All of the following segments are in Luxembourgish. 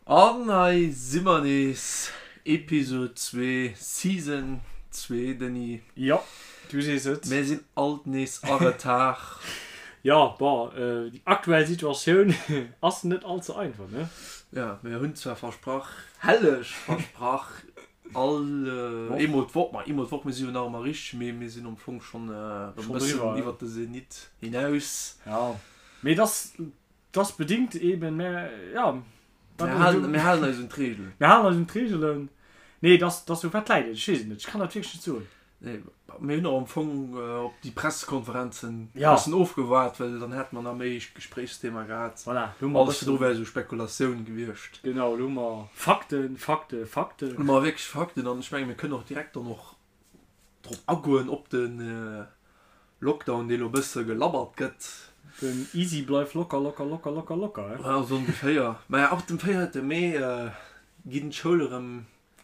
An hei si mer nees, Episode 2, Season 2, Denis. Jo, du sees et. Mir sinn alt nees a Retard. Jo, bon, déi aktuell Situatioun ass net all ze einfach, ne? Jo, mir hunn zwar versprach, helleg versprach, all eemol d'Woch, ma eemol d'Woch, mir si jo nach ëmmer richteg, mee mir sinn am Fong schonn e bëssen iwwert de Zenit hinaus. Jo, mee et ass, et ass bedingt eben, mä jo. Mir halen, mir halen eis un d'Reegelen. Mir halen eis un d'Reegelen. Nee, et ass, et ass esou, wat läit et? Ech weess et net, ech kann dat wierklech net soen. Nee, mir hunn och am Fong op déi Pressekonferenzen e bëssen ofgewaart, well dann hätte mer nach méi Gespréichsthema gehat. Voilà, lo hu mer e Alles virdru wär esou Spekulatioun gewiescht. Genau, lo hu mer Fakten, Fakten, Fakten. Lo hu mer wierklech Fakten an ech menge mir kënnen och direkt dann och drop agoen, op de Lockdown, dee lo e bësse gelabbert gëtt. Den Easy bleif locker, locker, locker, locker, locker, he? Ja, esou ongeféier. Maja, ab dem 4. Mee ginn d'Schoule rëm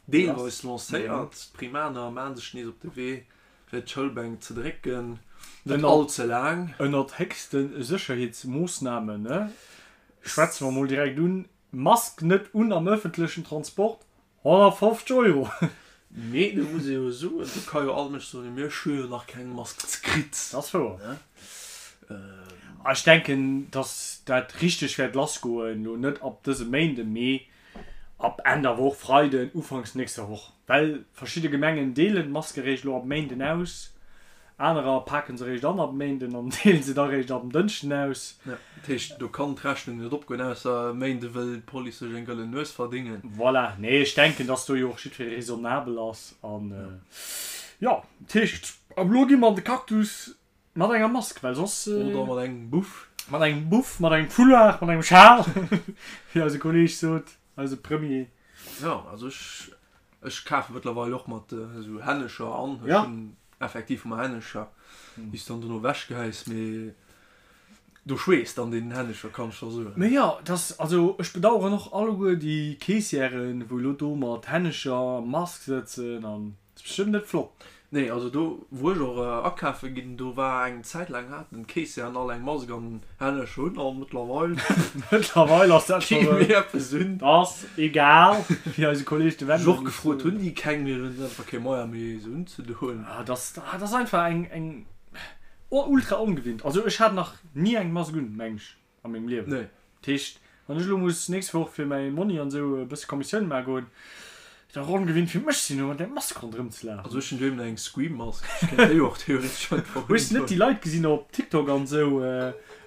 Deelweis lancéiert. D'Primaner maachen sech nees op de Wee fir d'Schoulbänk ze drécken. Net all ze laang. Ënnert héchste Sécherheetsmoossnamen, ne? Schwätze mer mol direkt un, Mask net un am ëffentlechen Transport, 150 Euro! Mee do muss ee jo soen, do ka jo all Mënsch soen, mee ech hu jo nach keng Mask kritt. Dat ass wouer. Ech denken, datt dat richteg wäert lassgoen, elo net ab dësem Méinden, mee Ab Enn der Woch, Freiden, Ufanks nächster Woch. Well verschidde Gemengen deelen d'Maske réischt elo ab Méinden aus, anerer paken se réischt an ab Méinden an deelen se da réischt ab en Dënschden aus. Jo, dat heescht, do kann d'Rechnung net opgoen, ausser e Méinde wëll d'Police sech eng gëllen Nues verdéngen. Voilà, nee, ech denken, dass do jo och jiddweree raisonnabel ass an jo, dat heescht, ab elo gi mer an de Cactus. Mat enger Mask, well soss. Oder mat engem Buff. Mat engem Buff, mat engem Foulard, mat engem Schal, wéi eise Kolleeg sot, eise Premier. Jo, also ech, ech kafe mëttlerweil och mat esou Hännecher an. Ech hunn effektiv ëmmer Hännecher, déi s dann dono ewechgehäis, mee do schweesst an deenen Hännecher, kann ech der soen. Mee jo, et ass, also ech bedauern och alleguer déi Caissièren, wou elo do mat Hännecher a Mask sëtzen an. Ass bestëmmt net flott. Nee, also do wou ech och akafe ginn, do war eng Zäit laang haten d'Keessieren all eng Mask an Hännescher un an mëttlerweil Mëttlerweil ass dat kee méi eppes un. Ass egal, wéi eise Kolleeg de Wendel Ech och gefrot, hunn déi keng méi, hunn se einfach kee Moyen méi se unzedoen. Ah, dat ass, dat ass einfach eng, eng ultra ongewinnt. Also ech hat nach ni eng Mask un, meng ech. A mengem Liewen. Nee. Dat heescht, wann ech elo muss d'nächst Woch fir mäi Monni an esou e bësse Kommissioun maache goen, wäert och ongewinnt fir mech sinn, elo mat där Mask ronderëm ze lafen. Also ech hunn doheem nach eng Scream-Mask, ech kéint déi och theoretesch einfach Hues de net déi Leit gesinn op TikTok an esou,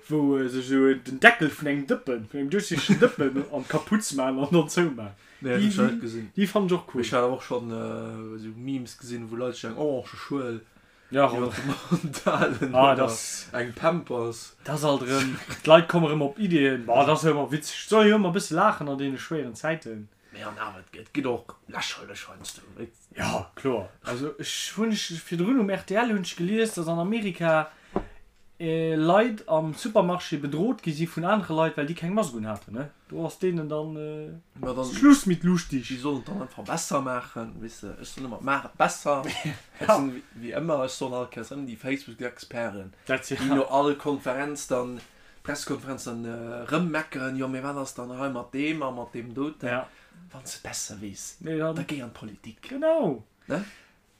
wou sech esou den Deckel vun engem Dëppen, vun engem duerchsichtegen Dëppen an d'Kapuz maachen an dann zoumaachen? Nee, dat hunn ech nach net gesinn. Déi fannen ech och cool. Mee ech hat awer och schonn esou Memes gesinn, wou Leit sech eng orange Schuel Ja, iwwer de Mond halen ah, oder das, eng Pampers. Das alt erëm. D'Leit komme erëm op Ideeën. Boah, dat ass jo ëmmer witzeg. Et soll jo ëmmer e bësse laachen an deene schwéieren Zäiten. Mee an awer, et gëtt och lächerlech heiansdo. Ja, kloer. Also ech hunn ech virdrun um rtl hunn ech gelies, datt an Amerika Leit am Supermarché bedrot gi si vun anere Leit, well déi keng Mask un haten. Ne? Do ass deenen dann Ma dann, Schluss mit lustig. Déi sollen et dann einfach besser maachen, weess de. Ech soen ëmmer, maach et besser. Dat sinn wéi ëmmer, ech soen all Kéiers ëmmer déi Facebook-Experten, déi no all Konferenz dann, Pressekonferenz dann erëm meckeren, jo mee wat ass dann hei mat deem a mat deem doten. Wann s de et besser weess, da géi an d'Politik. Genau. Ne?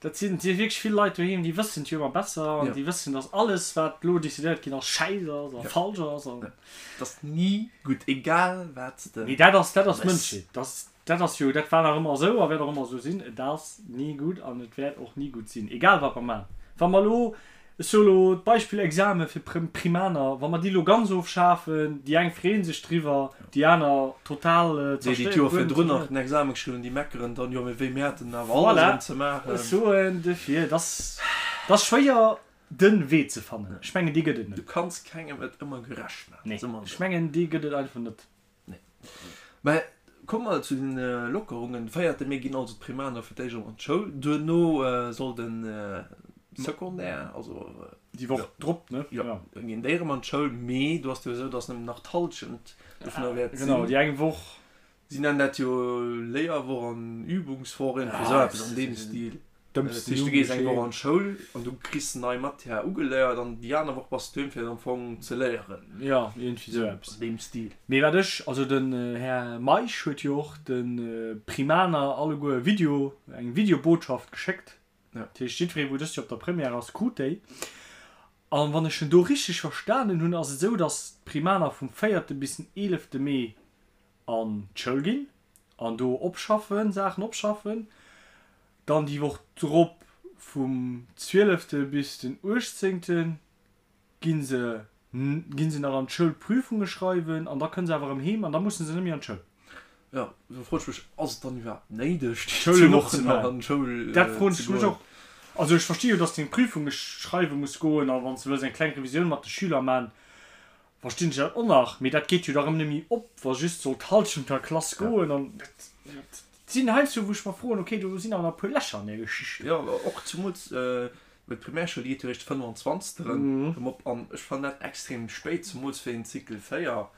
Dat sinn si wierklech vill Leit doheem, déi wëssen et jo ëmmer besser an déi wëssen, dass alles, wat elo decidéiert ginn ass, schäiss ass a falsch ass. An. Et ass ni gutt, egal wat s de Mee dat ass, dat ass méchs. Mënschheet. Dat, dat ass jo, dat war nach ëmmer esou a wäert och ëmmer esou sinn. Et ass ni gutt an et wäert och ni gutt sinn, egal wat mer maachen. Wa mer elo Ech soe lo d'Beispill Exame fir Primaner, wa mer déi lo ganz ofschafen, déi eng freeën sech driwwer, déi aner total Déi, déi zerstéiert, d'Joer guer net virdrun nach zerstéiert. den Exame geschriwwen hunn, déi meckeren dann, jo mee wéi, mir haten awer alles Voilà, erëm ze maachen. ech soen duerfir, et ass, et ass schwéier de Wee ze fannen. Ech mengen, dee gëtt et Du net. kanns kengem et ëmmer gerecht maachen, Nee, soe mer ech esou. mengen, dee gëtt et einfach net. Nee. Mä komme mer zu den Lockerungen. De véierte Mee ginn also d'Primaner fir d'éischt erëm an d'Schoul. Duerno soll de Secondaire, also. Déi Woch drop, ne? Jo, da ginn déi erëm an d'Schoul. Mee do ass et jo esou, datt nëmmen nach d'Hallschent dovunner wäert sinn. Genau, déi eng Woch. Si nennen dat jo Léierwoch an Übungswoch, iergendwéi esou eppes an deem Stil. Dat heescht, du gees eng Woch an d'Schoul an du kriss nei Matière ugeléiert an déi aner Woch bass du doheem fir am Fong ze léieren. Jo, iergendwéi sou eppes. An deem Stil. Mee wat ech, also den Här Meisch huet jo och de Primaner alleguer e Video, eng Videobotschaft geschéckt. Dat heescht, jiddweree wou dëst Joer op der Première ass, krut déi. An wann ech en do richteg verstanen hunn, ass et esou, datt d'Primaner vum véierte bis den eelefte Mee an d'Schoul ginn an do opschaffen, Saachen opschaffen. Dann déi Woch drop vum zwielefte bis den uechtzéngte gi se gi se nach an d'Schoul Prüfunge schreiwen an da kënne se awer erëm heem an da musse se net méi an d'Schoul. Jo, do froen ech mech, ass et dann iwwerhaapt néideg, déi zwou Wochen nach an d'Schoul ze goen? Dat froen ech mech och. Also ech versti jo, dass de eng Prüfunge schreiwe muss goen a wann s de wëlls eng kleng Revisioun mat de Schüler man, verstinn ech dat och nach, mee dat geet jo da rëm net méi op, wa just soll d'Halschent der Klass goen an dat sinn heiansdo wou ech mer froen, okay, do sinn awer nach e puer Lächer an där Geschicht. Jo, och zemools well d'Primärschoul, déi geet jo eréischt de 25. Erëm op an ech fannen dat extrem spéit, zemools fir een Cycle 4,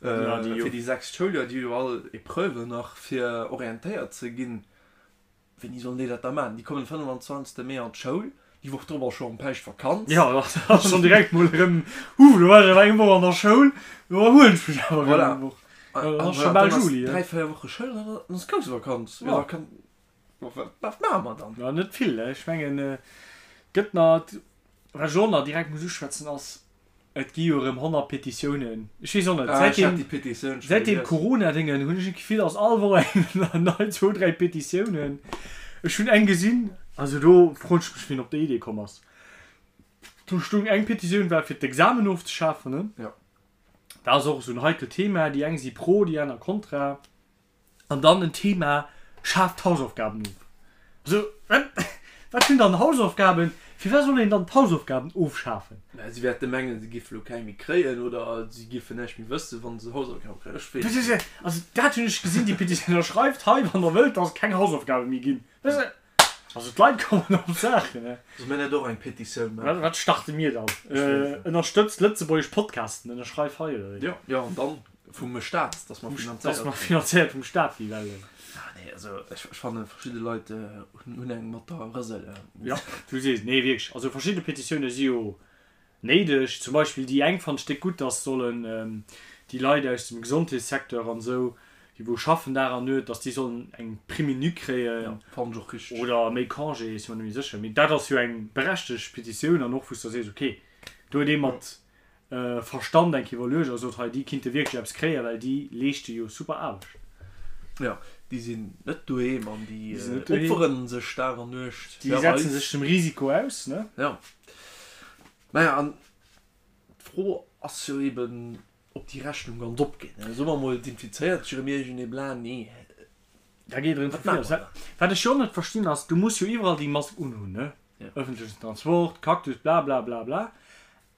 fir déi sechst Schouljoer, déi hu jo all Epreuven nach fir orientéiert ze ginn. Wéini sollen déi dat da maachen? Déi kommen 25 Mee an d'Schoul, déi Woch drop ass scho erëm Päischtvakanz. Jo, da ass schonn direkt mol erëm, Huh, lo war ech awer eng Woch an der Schoul, lo erhuelen ech mech awer erëm eng Woch. Dann ass scho bal Juli. Voilà, 3, 4 Woche Schoul an dann ass Groussvakanz. Jo, da kann, wat maache mer dann? Jo, net vill. Ech mengen, et gëtt nach, wat ech och nach direkt muss uschwätzen, ass, Et gi jo erëm 100 Petitiounen. Ech weess och net, Ah, ech hat déi Petitioun scho säit deem gelies. Corona-Déngen hunn ech d'Gefill, ass all Woch eng nei, zwou, dräi Petitiounen. Ech hunn eng gesinn, also do froen ech mech, wien op déi Idee komm ass. Do stoung, eng Petitioun war fir d'Examen ofzeschafen, ne? Jo. Dat ass och esou en heikelt Thema, déi eng si pro, déi aner kontra. An dann en Thema, Schaaft d'Hausaufgaben of. Also, wat, wat sinn dann Hausaufgaben? Firwat soll een dann d'Hausaufgaben ofschafen? Mä si wäerte mengen, si géife lo keng méi kréien oder si géifen näischt méi wëssen, wa se Hausaufgabe kréien. Ech weess et net. Also, dat hunn ech gesinn, déi Petitioun. Ënnerschreift hei, wann der wëllt, dass et keng Hausaufgabe méi ginn. Also, d'Leit kommen op Saachen, ne? Solle mir net och eng Petitioun maachen? Wat starte mir dann? Ënnerstëtzt lëtzebuergesch Podcasten, ënnerschreif hei, oder wéi? Jo, jo, an dann Vum Staat, dass mer finanzéiert Dass mer finanzéiert vum Staat gi well. Ah nee, also ech fanne verschidde Leit hunn eng mat der Rësel. Jo, du sees et. Nee wierklech, also verschidde Petitioune si jo néideg. Zum Beispill déi eng fannen ech déck gutt, dass sollen déi Leit aus dem Gesondheetssecteur an esou, déi wou schaffen Dag an Nuet, dass déi sollen eng Prime unique kréien. Jo, fannen ech och richteg. Oder méi Congé, ech si mer net méi sécher. Mee dat ass jo eng berechtegt Petitioun an och wou s de sees, okay, do huet ee mat Verstand eng Kéier iwwerluecht a sot, hei déi kinnte wierklech eppes kréien, well déi leeschte jo super Aarbecht. Jo, déi sinn net doheem an déi opferen sech Dag an Nuecht fir eis. Déi setzen sech dem Risiko aus, ne? Jo. Naja, an d'Fro ass jo eben, ob déi Rechnung ganz opgeet, ne? Soe mer emol, et infizéiert sech erëm iergendee bla, nee. Da geet erëm vu vir lass. Wat ech jo net verstinn ass, du muss jo iwwerall déi Mask unhunn, ne? Ëffentlechen Transport, Cactus, bla bla bla bla.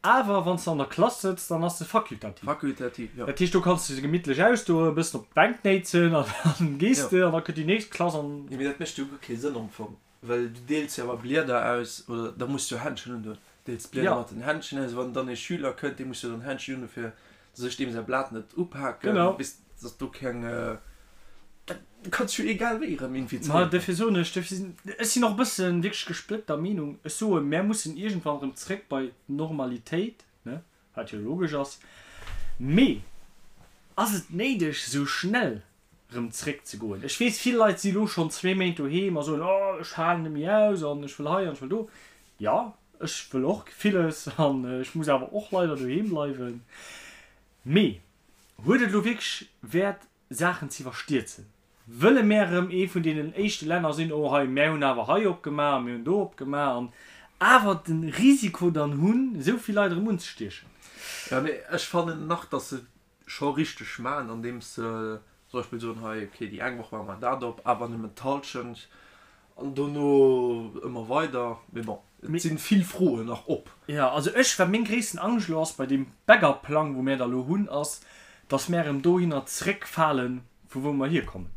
Awer wann s de an der Klass sëtz, dann ass se fakultativ. Fakultativ, jo. Dat heescht, do kanns de se gemittlech ausdoen, e bëssen op d'Bänk néitsen an dann gees de an da kënnt déi nächst Klass an. Jo, mee dat mécht jo guer kee Sënn am Fong, well du deels jo awer Blieder aus, oder da muss du jo Händschen undoen. Deels d'Blieder mat den Händschen aus, wann dann ee Schüler kënnt, dee muss jo dann Händschen undoen, fir dass ech deem säi Blat net upaken, Genau. bis dass do keng. Du kanns jo egal wéi erëm Ma infizéiert ginn. dofir soen ech, dofir sinn, ech sinn och e bëssen wierklech gesplëtter Meenung. Ech soen, mär mussen iergendwann erëm zréck bei d'Normalitéit, ne, wat jo logesch ass. Mee ass et néideg, esou schnell erëm zréck ze goen? Ech weess, vill Leit si lo schonn zwee Méint doheem a soen, oh, ech halen net méi aus an ech wëll hei an ech wëll do. Jo, ech wëll och villes an ech muss awer och leider doheem bleiwen. Mee huet et elo wierklech Wäert, Saachen ze iwwerstierzen. Wëlle mär erëm ee vun deenen éischte Länner sinn, oh hei, mär hunn awer hei opgemaach a mir hunn do opgemaach an awer de Risiko dann hunn, esou vill Leit erëm unzestiechen? Jo, mee ech fannen nach, datt se et scho richteg maachen, andeems se zum Beispill soen, hei, okay, déi eng Woch maache mer dat op, awer nëmmen d'Hallschent an dono ëmmer weider. Mee bon, et si vill Froen nach op. Jo, also ech, wat meng gréissten Angscht elo ass bei deem Backup-Plang, wou mär da elo hunn, ass, dass mär erëm dohinner zréckfalen, vu wou mer hierkommen,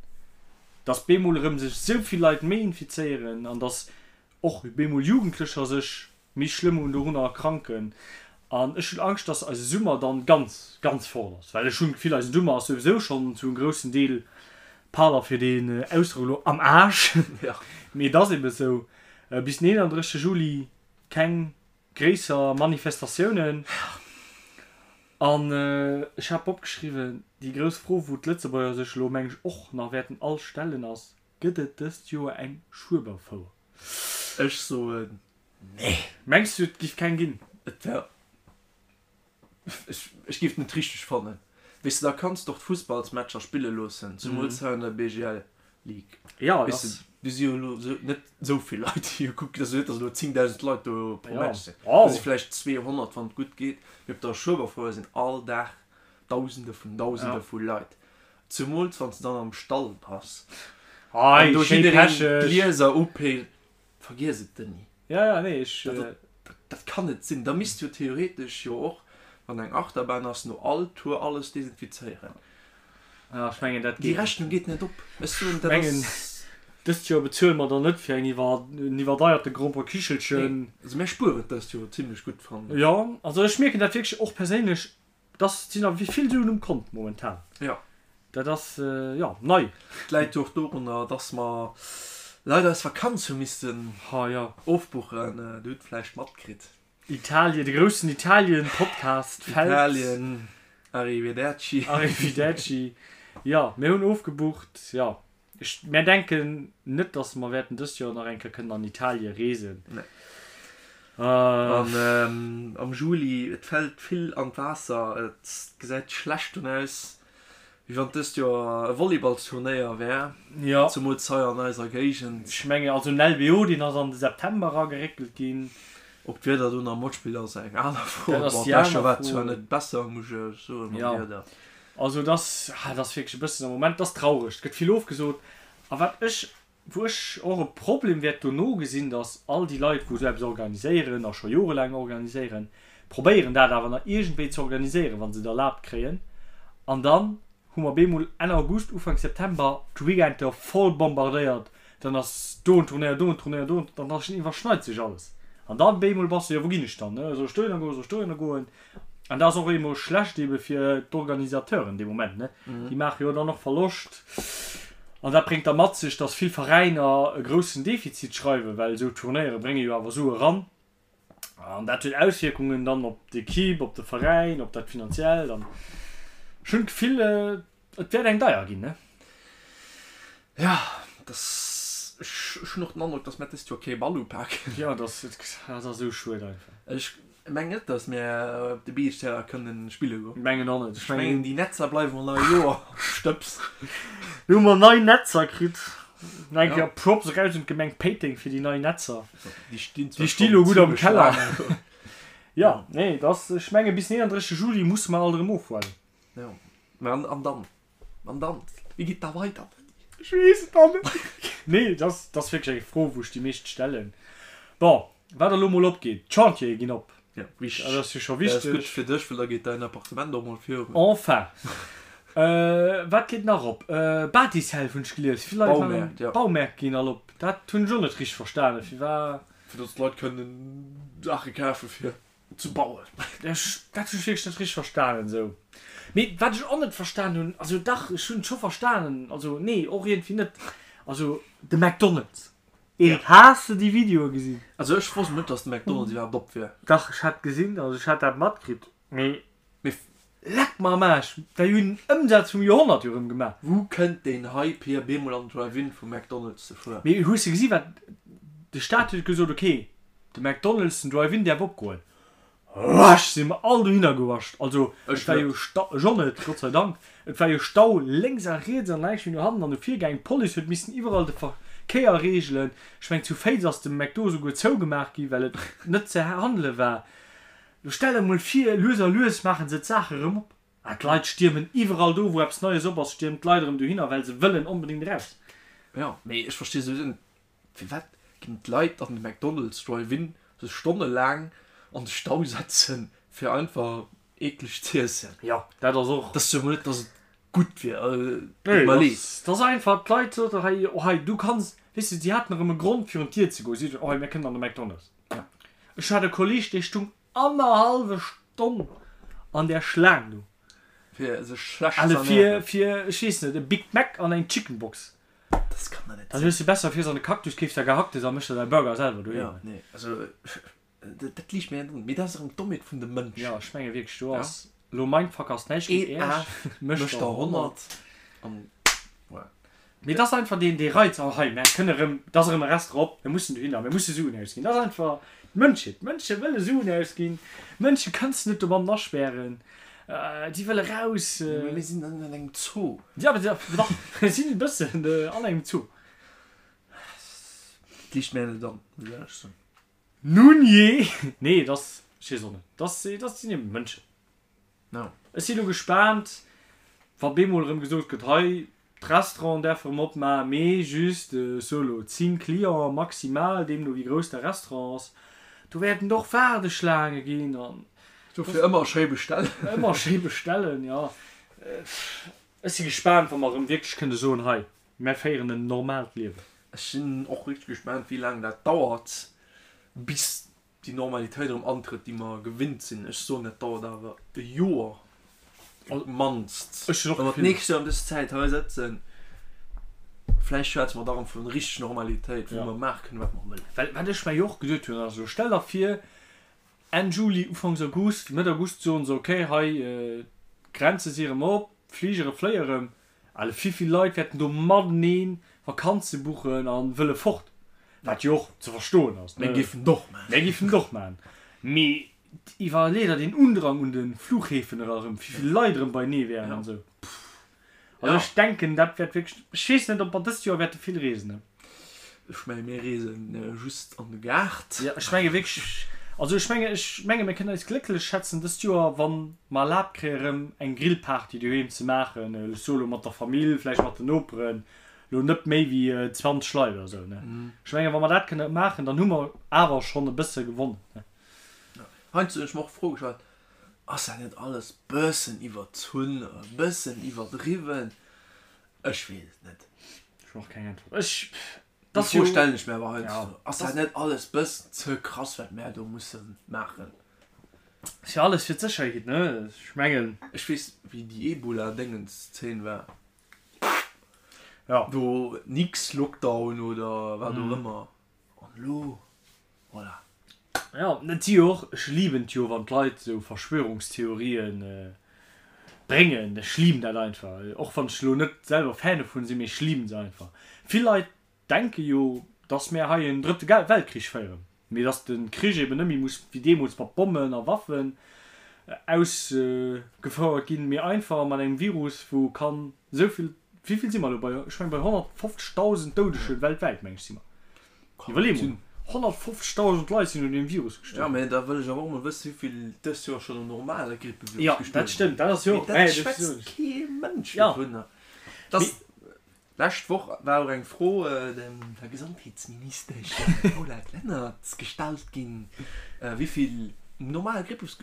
dass bemol erëm sech esou vill Leit méi infizéieren an dass och bemol Jugendlecher sech méi schlëmm un dorunner erkranken. An ech hunn Angscht, dass eise Summer dann ganz, ganz fort ass, well ech hunn d'Gefill, eisen Summer ass souwisou schonn zu engem groussen Deel, pardon fir deen Ausdrock elo, am Aarsch, mee et ass ebe sou. Bis den 31 Juli keng gréisser Manifestatiounen. An ech hat opgeschriwwen, déi grouss Fro, wou d'Lëtzebuerger sech elo, meng ech, och nach wäerten all stellen, ass, Gëtt et dëst Joer eng Schueberfouer? Ech soen nee. Mengs du, et giff keng ginn? Et wär, ech, ech giff et net richteg fannen. Weess de, da kanns de och d'Fussballsmatcher spille loossen, zemools hei an der BGL League. Ja, Weess de, do si jo elo sou net sou vill Leit, déi jo kucken. Et ass jo net, datt elo 10.000 Leit do pro Match sinn. Do si vläicht 200, wann et gutt geet. Mee op der Schueberfouer sinn all Dag Dausende vun Dausende vu Leit. Zemools wann s de dann am Stall bass an do jiddereen d'Glieser upéilt. Vergiess et, Denis. Ja, ja, nee, ech. Dat, dat kann net sinn. Da misst jo theoretesch jo och, wann eng Achterbahn ass, no all Tour alles desinfizéieren. Ja, ech mengen, dat geet. Déi Rechnung geet net op. Ech soen, dat ass. Dëst Joer bezuele mer dann net fir eng iwwer, en iwwerdeierte Gromperkichelchen. Nee, also mir spueren dëst Joer zimlech gutt, fannen ech. Jo, also ech mierken dat wierklech och perséinlech. Dass sinn awer vill Suen um Kont momentan. Jo. Dat ass, jo, nei. Et läit jo och dorunner, dass mer leider eis Vakanz hu missten ofbuchen. Dir hutt vläicht matkritt. Italien, de groussen Italien-Podcast fält. Italien, arrivederci. Arrivederci. Jo, mir hunn ofgebucht, jo. Ech, mär denken net, dass mer wäerten dëst Joer nach eng Kéier kënnen an Italie reesen. Nee. An am Juli, et fält vill an d'Waasser, et gesäit schlecht un aus, wéi wann dëst Joer e Volleyballsturnéier wär, Jo. zemools hei an eiser Géigend. Ech mengen, also den LBO, deen ass an de September erageréckelt ginn. Ob d'Wieder do nach matspillt, ass eng aner Fro. Dat ass déi aner Fro. Bon, d'lescht Joer war et zwar net besser, muss ech soen, mam Wieder. Also et ass, ah, et ass wierklech e bëssen am Moment, et ass traureg, et gëtt vill ofgesot. A wat ech, wou ech och e Problem wäert dono gesinn, datt all déi Leit, wou esou eppes organiséieren a scho jorelaang organiséieren, probéieren dat awer nach iergendwéi ze organiséieren, wa se et erlaabt kréien. An dann hu mer bemol Enn August, Ufank September d'Weekender voll bombardéiert Dann ass do en Turnéier, do en Turnéier, do en, dann iwwerschneit sech alles. An dann bemol bass de, jo wou ginn ech dann, ne, soll ech dohinner goen, soll ech dohinner goen? An dat ass och emol schlecht ebe fir d'Organisateuren dee Moment, ne, déi maache jo dann och Verloscht. An dat bréngt da mat sech, datt vill Veräiner e groussen Defizit schreiwen, well esou Turnéiere brénge jo awer Sue ran. An dat huet Auswierkungen dann op d'Equipe, op de Veräin, op dat Finanziellt. An ech hunn d'Gefill, et wäert eng deier ginn, ne? Ja, dass, ech hunn och den Androck, dass mär dëst Joer kee Ball upaken. Jo, dass, dat ass esou schued einfach. Ech mengen net, dass mär op de Beachterrain kënnen spille goen. Mengen och net. Ech mengen, déi Netzer bleiwen och nach e Joer am Stëbs. Lo hu mer nei Netzer kritt. Nach eng Kéier Props eraus un d'Gemeng Péiteng fir déi nei Netzer. Déi stinn zwar Déi sti lo gutt am Keller. Jo, nee, et ass, ech menge bis den 31 Juli musse mer alt erëm ofhuelen. Jo, mä an, an dann? An dann? Wéi geet da weider? Ech weess et dann net. Nee, et ass, et ass wierklech eng Fro, wou ech déi meescht stellen. Bon, wat elo mol opgeet, d'Chantiere ginn op. Ja, wichteg. Dat ass jo scho wichteg. Dat ass gutt fir dech, well da geet däin Appartement och mol virun. Enfin. Wat geet nach op? Batiself hunn ech gelies. Vill Leit waren. Baumäert, ja. Baumäert ginn all op. Dat hunn ech och net richteg verstanen. Firwat? Fir datt d'Leit kënnen Saache kafe fir ze bauen. Ech, dat hunn ech wierklech net richteg verstanen esou. Mee wat ech och net verstan hunn, also dach, ech hunn et scho verstanen, also nee, och iergendwéi net. Also de McDonald's. Eric, has de déi Videoe gesinn? Also ech wosst net dass de McDonald's iwwerhaapt op wier. Dach, ech hat gesinn, also ech hat dat matkritt, mee. Mee. Leck mer am Aarsch, déi hunn den Ëmsaz vum Joerhonnert jo rëm gemaach. Wou kënnt deen Hype hier, bemol an den Drive-In vum McDonald's ze fueren? Mee hues de gesi wat, de Staat huet gesot, ok, de McDonald's, den Drive-In däerf opgoen. Rush si mer all dohinner gewascht. Also et war jo Stau, ech och net, Gott sei Dank, et war jo Stau lénks a riets an näischt méi no hannen an no vir gaangen. D'Police huet missen iwwerall de Verkéier reegelen. Ech mengen zu Féiz ass de McDo esouguer zougemaach gi well et net ze handele war. Lo stell der mol vir, lues a lues maache se d'Saache erëm op a d'Leit stiermen iwwerall do wou eppes Neies op ass, stiermen d'Leit erëm dohinner well se wëllen onbedéngt eraus. Jo, mee ech versti souwisou net, Firwat ginn d'Leit an de McDonald's Drive-In sech stonnelaang an de Stau setzen fir einfach eekleg z'iessen? Jo, dat ass och. Dat ass jo mol net, dass et gutt wier, deet mer leed. Dat ass einfach, d'Leit soten hei, oh hei, du kanns, weess de, si haten erëm e Grond virun d'Dier ze goen, si soten, oh hei, mir kënnen an de McDonald's. Ech hat e Kolleeg, dee stung annerhallwe Stonn an där Schlaang do. Fir sech schlecht z'ernären. Fir, fir, ech weess net, e Big Mac an eng Chicken Box. Dat kann der net Dann sinn. hues de besser fiers an de Cactus, keefs der Gehacktes a méchs der däi Burger selwer doheem. Jo, nee, also dat liicht mir net an. Mee dat ass erëm d'Dommheet vun de Mënschen. Jo, ech menge wierklech, do ass elo Mindfuck ass näischt géint Een Äerch, Af mécht mécht der der 100. 100 an voilà. Mee et ass einfach deen, dee Reiz, oh hei, mär kënne erëm, et ass erëm e Restaurant op, mir mussen dohinner, mir musse Suen ausginn. Dat ass einfach d'Mënschheet. D'Mënsche wëlle Suen ausginn. D'Mënsche kënns de net domatten aspären. Déi wëlle raus. Mee mir sinn an engem Zoo. Jo, mee dach, mir sinn e bëssen an engem Zoo. Et liicht mär net an, muss ech éierlech soen. Nun jee! Nee, et ass, ech weess och net, et ass, et ass, sinn eben Mënschen. No. Ech si lo gespaant, wa bemol erëm gesot gëtt, hei, d'Restauranten däerfe erëm opmaachen, mee just, ech soe lo, 10 Clienten maximal, deemno wéi grouss de Restaurant ass. Do wäerten et och Waardeschlaange ginn an. Dofir ëmmer schéi bestellen. Ëmmer schéi bestellen, jo. Ech si gespaant, wa mer erëm wierklech kënne soen, hei, mär féieren en normaalt Liewen. Ech sinn och richteg gespaant, wéi laang dat dauert, bis déi Normalitéit erëm antrëtt, déi mer gewinnt sinn. Ech soen, dat dauert awer e Joer op d'mannst. Ech hunn och Wa mer d'Gefill. d'nächst Joer ëm dës Zäit hei sëtzen, vläicht schwätze mer da erëm vu richteg Normalitéit, wou mer maache kënnen, wat mer wëllen. Well wat ech mer jo och geduet hunn, ass elo, stell der vir, Enn Juli, Ufanks August, Mëtt August soen se, okay, hei, d'Grenze si erëm op, d'Fligere fléie erëm. Alle vivill Leit wäerten do mateneen Vakanze buchen an wëlle fort, wat jo och ze verstoen ass, ne? Mir géifen et och maachen. Mir géifen et och maachen. Mee iwwerlee der deen Undrang un de Flughäfen era erëm, vivill Leit erëm beienee wären an esou. Also ech denken, dat wäert wierklech, ech weess net, ob mer dëst Joer wäerte vill reesen, ne? Ech menge mir reesen just an de Gaart. Jo, ech menge wierklech, also ech menge, ech menge mir kënnen eis glécklech schätzen dëst Joer, wa mer erlaabt kréie rëm eng Grillparty doheem ze maachen, ech soe lo mat der Famill, vläicht mat den Noperen, lo net méi wéi 20 Leit oder esou, ne. Ech menge wa mer dat kënne maachen, dann hu mer awer schonn e bësse gewonnen, ne. Heiansdo hunn ech mer och d'Fro gestallt, ass dat net alles bëssen iwwerzunn, e bëssen iwwerdriwwen? Ech weess et net. Ech hunn och keng Äntwert. Ech, Déi dat Fro jo. stellen ech mir awer heiansdo. Ja. Ass dat net alles bëssen ze krass, wat mär do musse maachen? Ass jo alles fir d'Sécherheet, ne? Ech mengen. Ech weess, wéi déi Ebola-Déngens-Zeen war. Ja. Do nix Lockdown oder wat och ëmmer. An elo, voilà. Jo, et si jo och, ech liben et jo, wann d'Leit esou Verschwörungstheorien bréngen. Ech liben dat einfach, och wann ech elo net selwer Fan dovun sinn, mee ech liben se einfach. Vill Leit denke jo, dass mär hei en drëtte Weltkrich féieren, mee dass de Krich eben net méi muss wéi deemools mat Bommen a Waffen ausgefouert ginn, mee einfach mat engem Virus, wou kann esou vill, wéi vill si mer elo bei, ech meng bei 150.000 Doudege weltwäit, meng ech si mer. Iwwerlee mol, 150.000 Leit sinn un deem Virus Ja, gestuerwen. mä da wëll ech awer och mol wëssen, wéi vill dëst Joer schonn um normale Grippevirus Ja, gestuerwen dat stëmmt, dat ass jo Mee och, dat dat schwätzt kee Mënsch Ja. dovunner. Dass, lescht Woch war och eng Fro dem der Gesondheetsministesch Paulette Lenert gestallt ginn, wéi vill um normale Grippevirus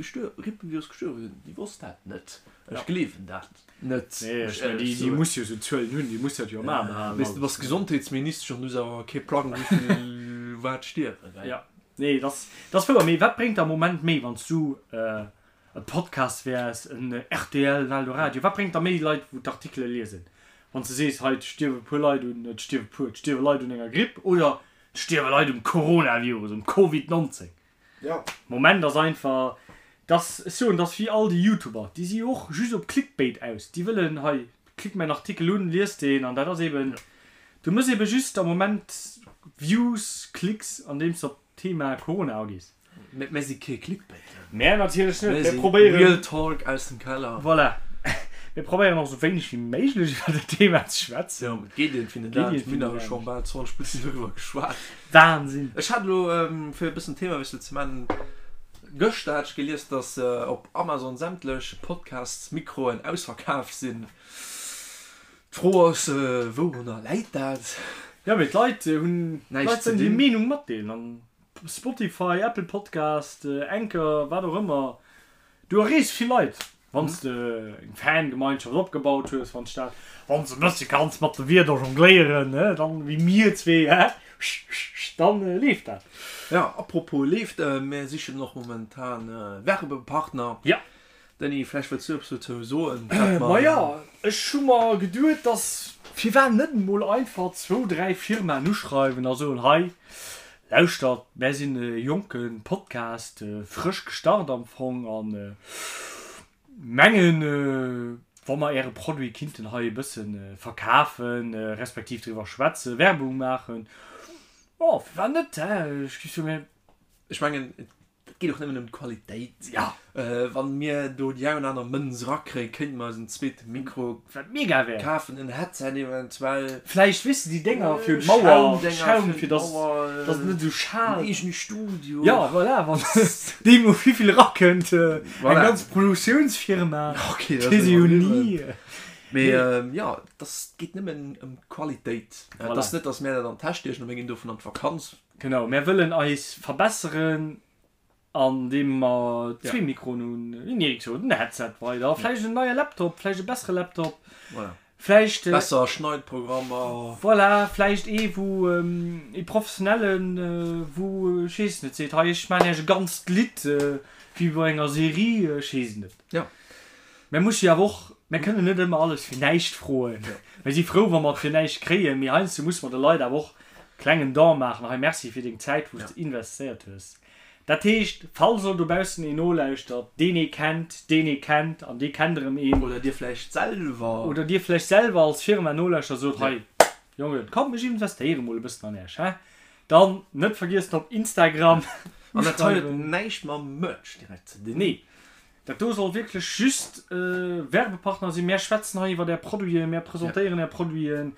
gestuerwe sinn. Déi wosst dat net. Ech gleewen dat. Net, Nee, muss ech mengen, éierlech déi soen. muss jo esou Zuelen hunn, déi muss dat jo am A behalen. Weess, du bass Gesondheetsministesch an du hues awer kee Plang, wéi vill wat stierwen, gell? Ja, nee, dat ass, dat ass wouer. Mee wat bréngt der am Moment méi, wann s du e Podcast wäers, en rtl, en Eldoradio, wat bréngt der méi Leit, wou d'Artikele liesen, wann s de sees, hei, et stierwe puer Leit un, et stierwe puer, et stierwe Leit un enger Gripp oder et stierwe Leit um Coronavirus, um Covid 19? Ja. Moment ass einfach dass, ech soen, dass wéi all déi Youtuber, déi si jo och just op Clickbait aus, déi wëllen, hei, klick mäin Artikel un, lies deen an dat ass eben, du mëss eben just am Moment Views, Klicks andeems de op d'Thema Corona agees. Mä mär si kee Clickbait. Mär natierlech net, Mär mär si probéieren. Real Talk aus dem Keller. Voilà. Mir probéieren och esou wéineg wéi méiglech iwwer dat Thema ze schwätzen. Jo, et geet iergendwéi net Geet anescht. iergendwéi Mir hunn net awer scho anescht. bal 20 Minutten doriwwer geschwat. Wahnsinn! Ech hat elo, fir e bëssen Themawiessel ze maachen, gëschter hat ech gelies, dass op Amazon sämtlech Podcasts-Mikroen ausverkaf sinn. D'Fro ass, wourunner läit dat? Jo, mee d'Leit hunn, Näischt d'Leit ze wëllen hir dinn. Meenung matdeelen an Spotify, Apple Podcast, Anchor, wat och ëmmer, Du erreechs vill Leit, wann s de eng Fangemeinschaft opgebaut hues, wann s dat, wann s e bëssche kanns mat de Wierder jongléieren, ne, dann, wéi mir zwee, hä, dann leeft dat. Jo, apropos leeft, mir sichen och momentan Werbepartner. Ja. Denis, vläicht wëlls du eppes dozou soen, wat mer. Maja, ech hu mer geduet, dass. Firwat net emol einfach zwou, dräi Firmaen uschreiwen a soen, hei, lauschtert, mär sinn e jonke Podcast, frësch gestart am Fong a mengen, wa mer Äre Produit kinnten hei e bësse verkafen, respektiv driwwer schwätzen, Werbung maachen, jo, firwat net, hä? Ech géif soen, mir. Ech mengen, et geet och nëmmen ëm d'Qualitéit. Ja. Wann mir do déi eng oder aner Mënz erakréien, kéinte mer eis en zweete Mikro Wat mega wär. kafen, en Headset eventuell. Vläicht, weess de, déi Dénger fir un d'Mauer, Schaum, fir dass dass et net esou schaalt. En eegene Studio. Ja, voilà, wann deemno wéivill erakënnt, eng ganz Produktiounsfirma, Ok, dat weess ee jo ni. Mee jo, et ass, geet nëmmen ëm d'Qualitéit. Et ass net, dass mär dat an d'Täsch stiechen a mir ginn dovun an d'Vakanz. Genau, mär wëllen eis verbesseren an deem mer zwee Mikroen hunn, wéi den Eric sot, en Headset weider, vläicht en neie Laptop, vläicht e bessere Laptop, vläicht. Besser Schneidprogrammer. Voilà, vläicht ee wou, ee professionellen, wou, ech weess net, seet, hei ech maachen iech e ganzt Lidd, wéi bei enger Serie, ech weess et net. Jo. Mär musse jo awer och, mär kënnen net ëmmer alles fir näischt froen. Mär si frou, wa mer et fir näischt kréien, mee heiansdo musse mer de Leit awer och klengen Don maachen, hei Merci fir deng Zäit, wou s de investéiert hues. Dat heescht, falls elo dobaussen een nolauschtert, deen ee kennt, deen ee kennt an dee kennt erëm een. Oder dir vläicht selwer. Oder dir vläicht selwer als Firma nolauschtert a sot, hei Jongen, komm ech investéiere mol e bëssen an Äech, hä? Dann net vergiessen op Instagram An dat hei huet näischt mam Merch direkt ze dinn. Nee. Dat do soll wierklech just Werbepartner sinn. Mär schwätzen hei iwwert Är Produiten, mär presentéieren Är Produiten.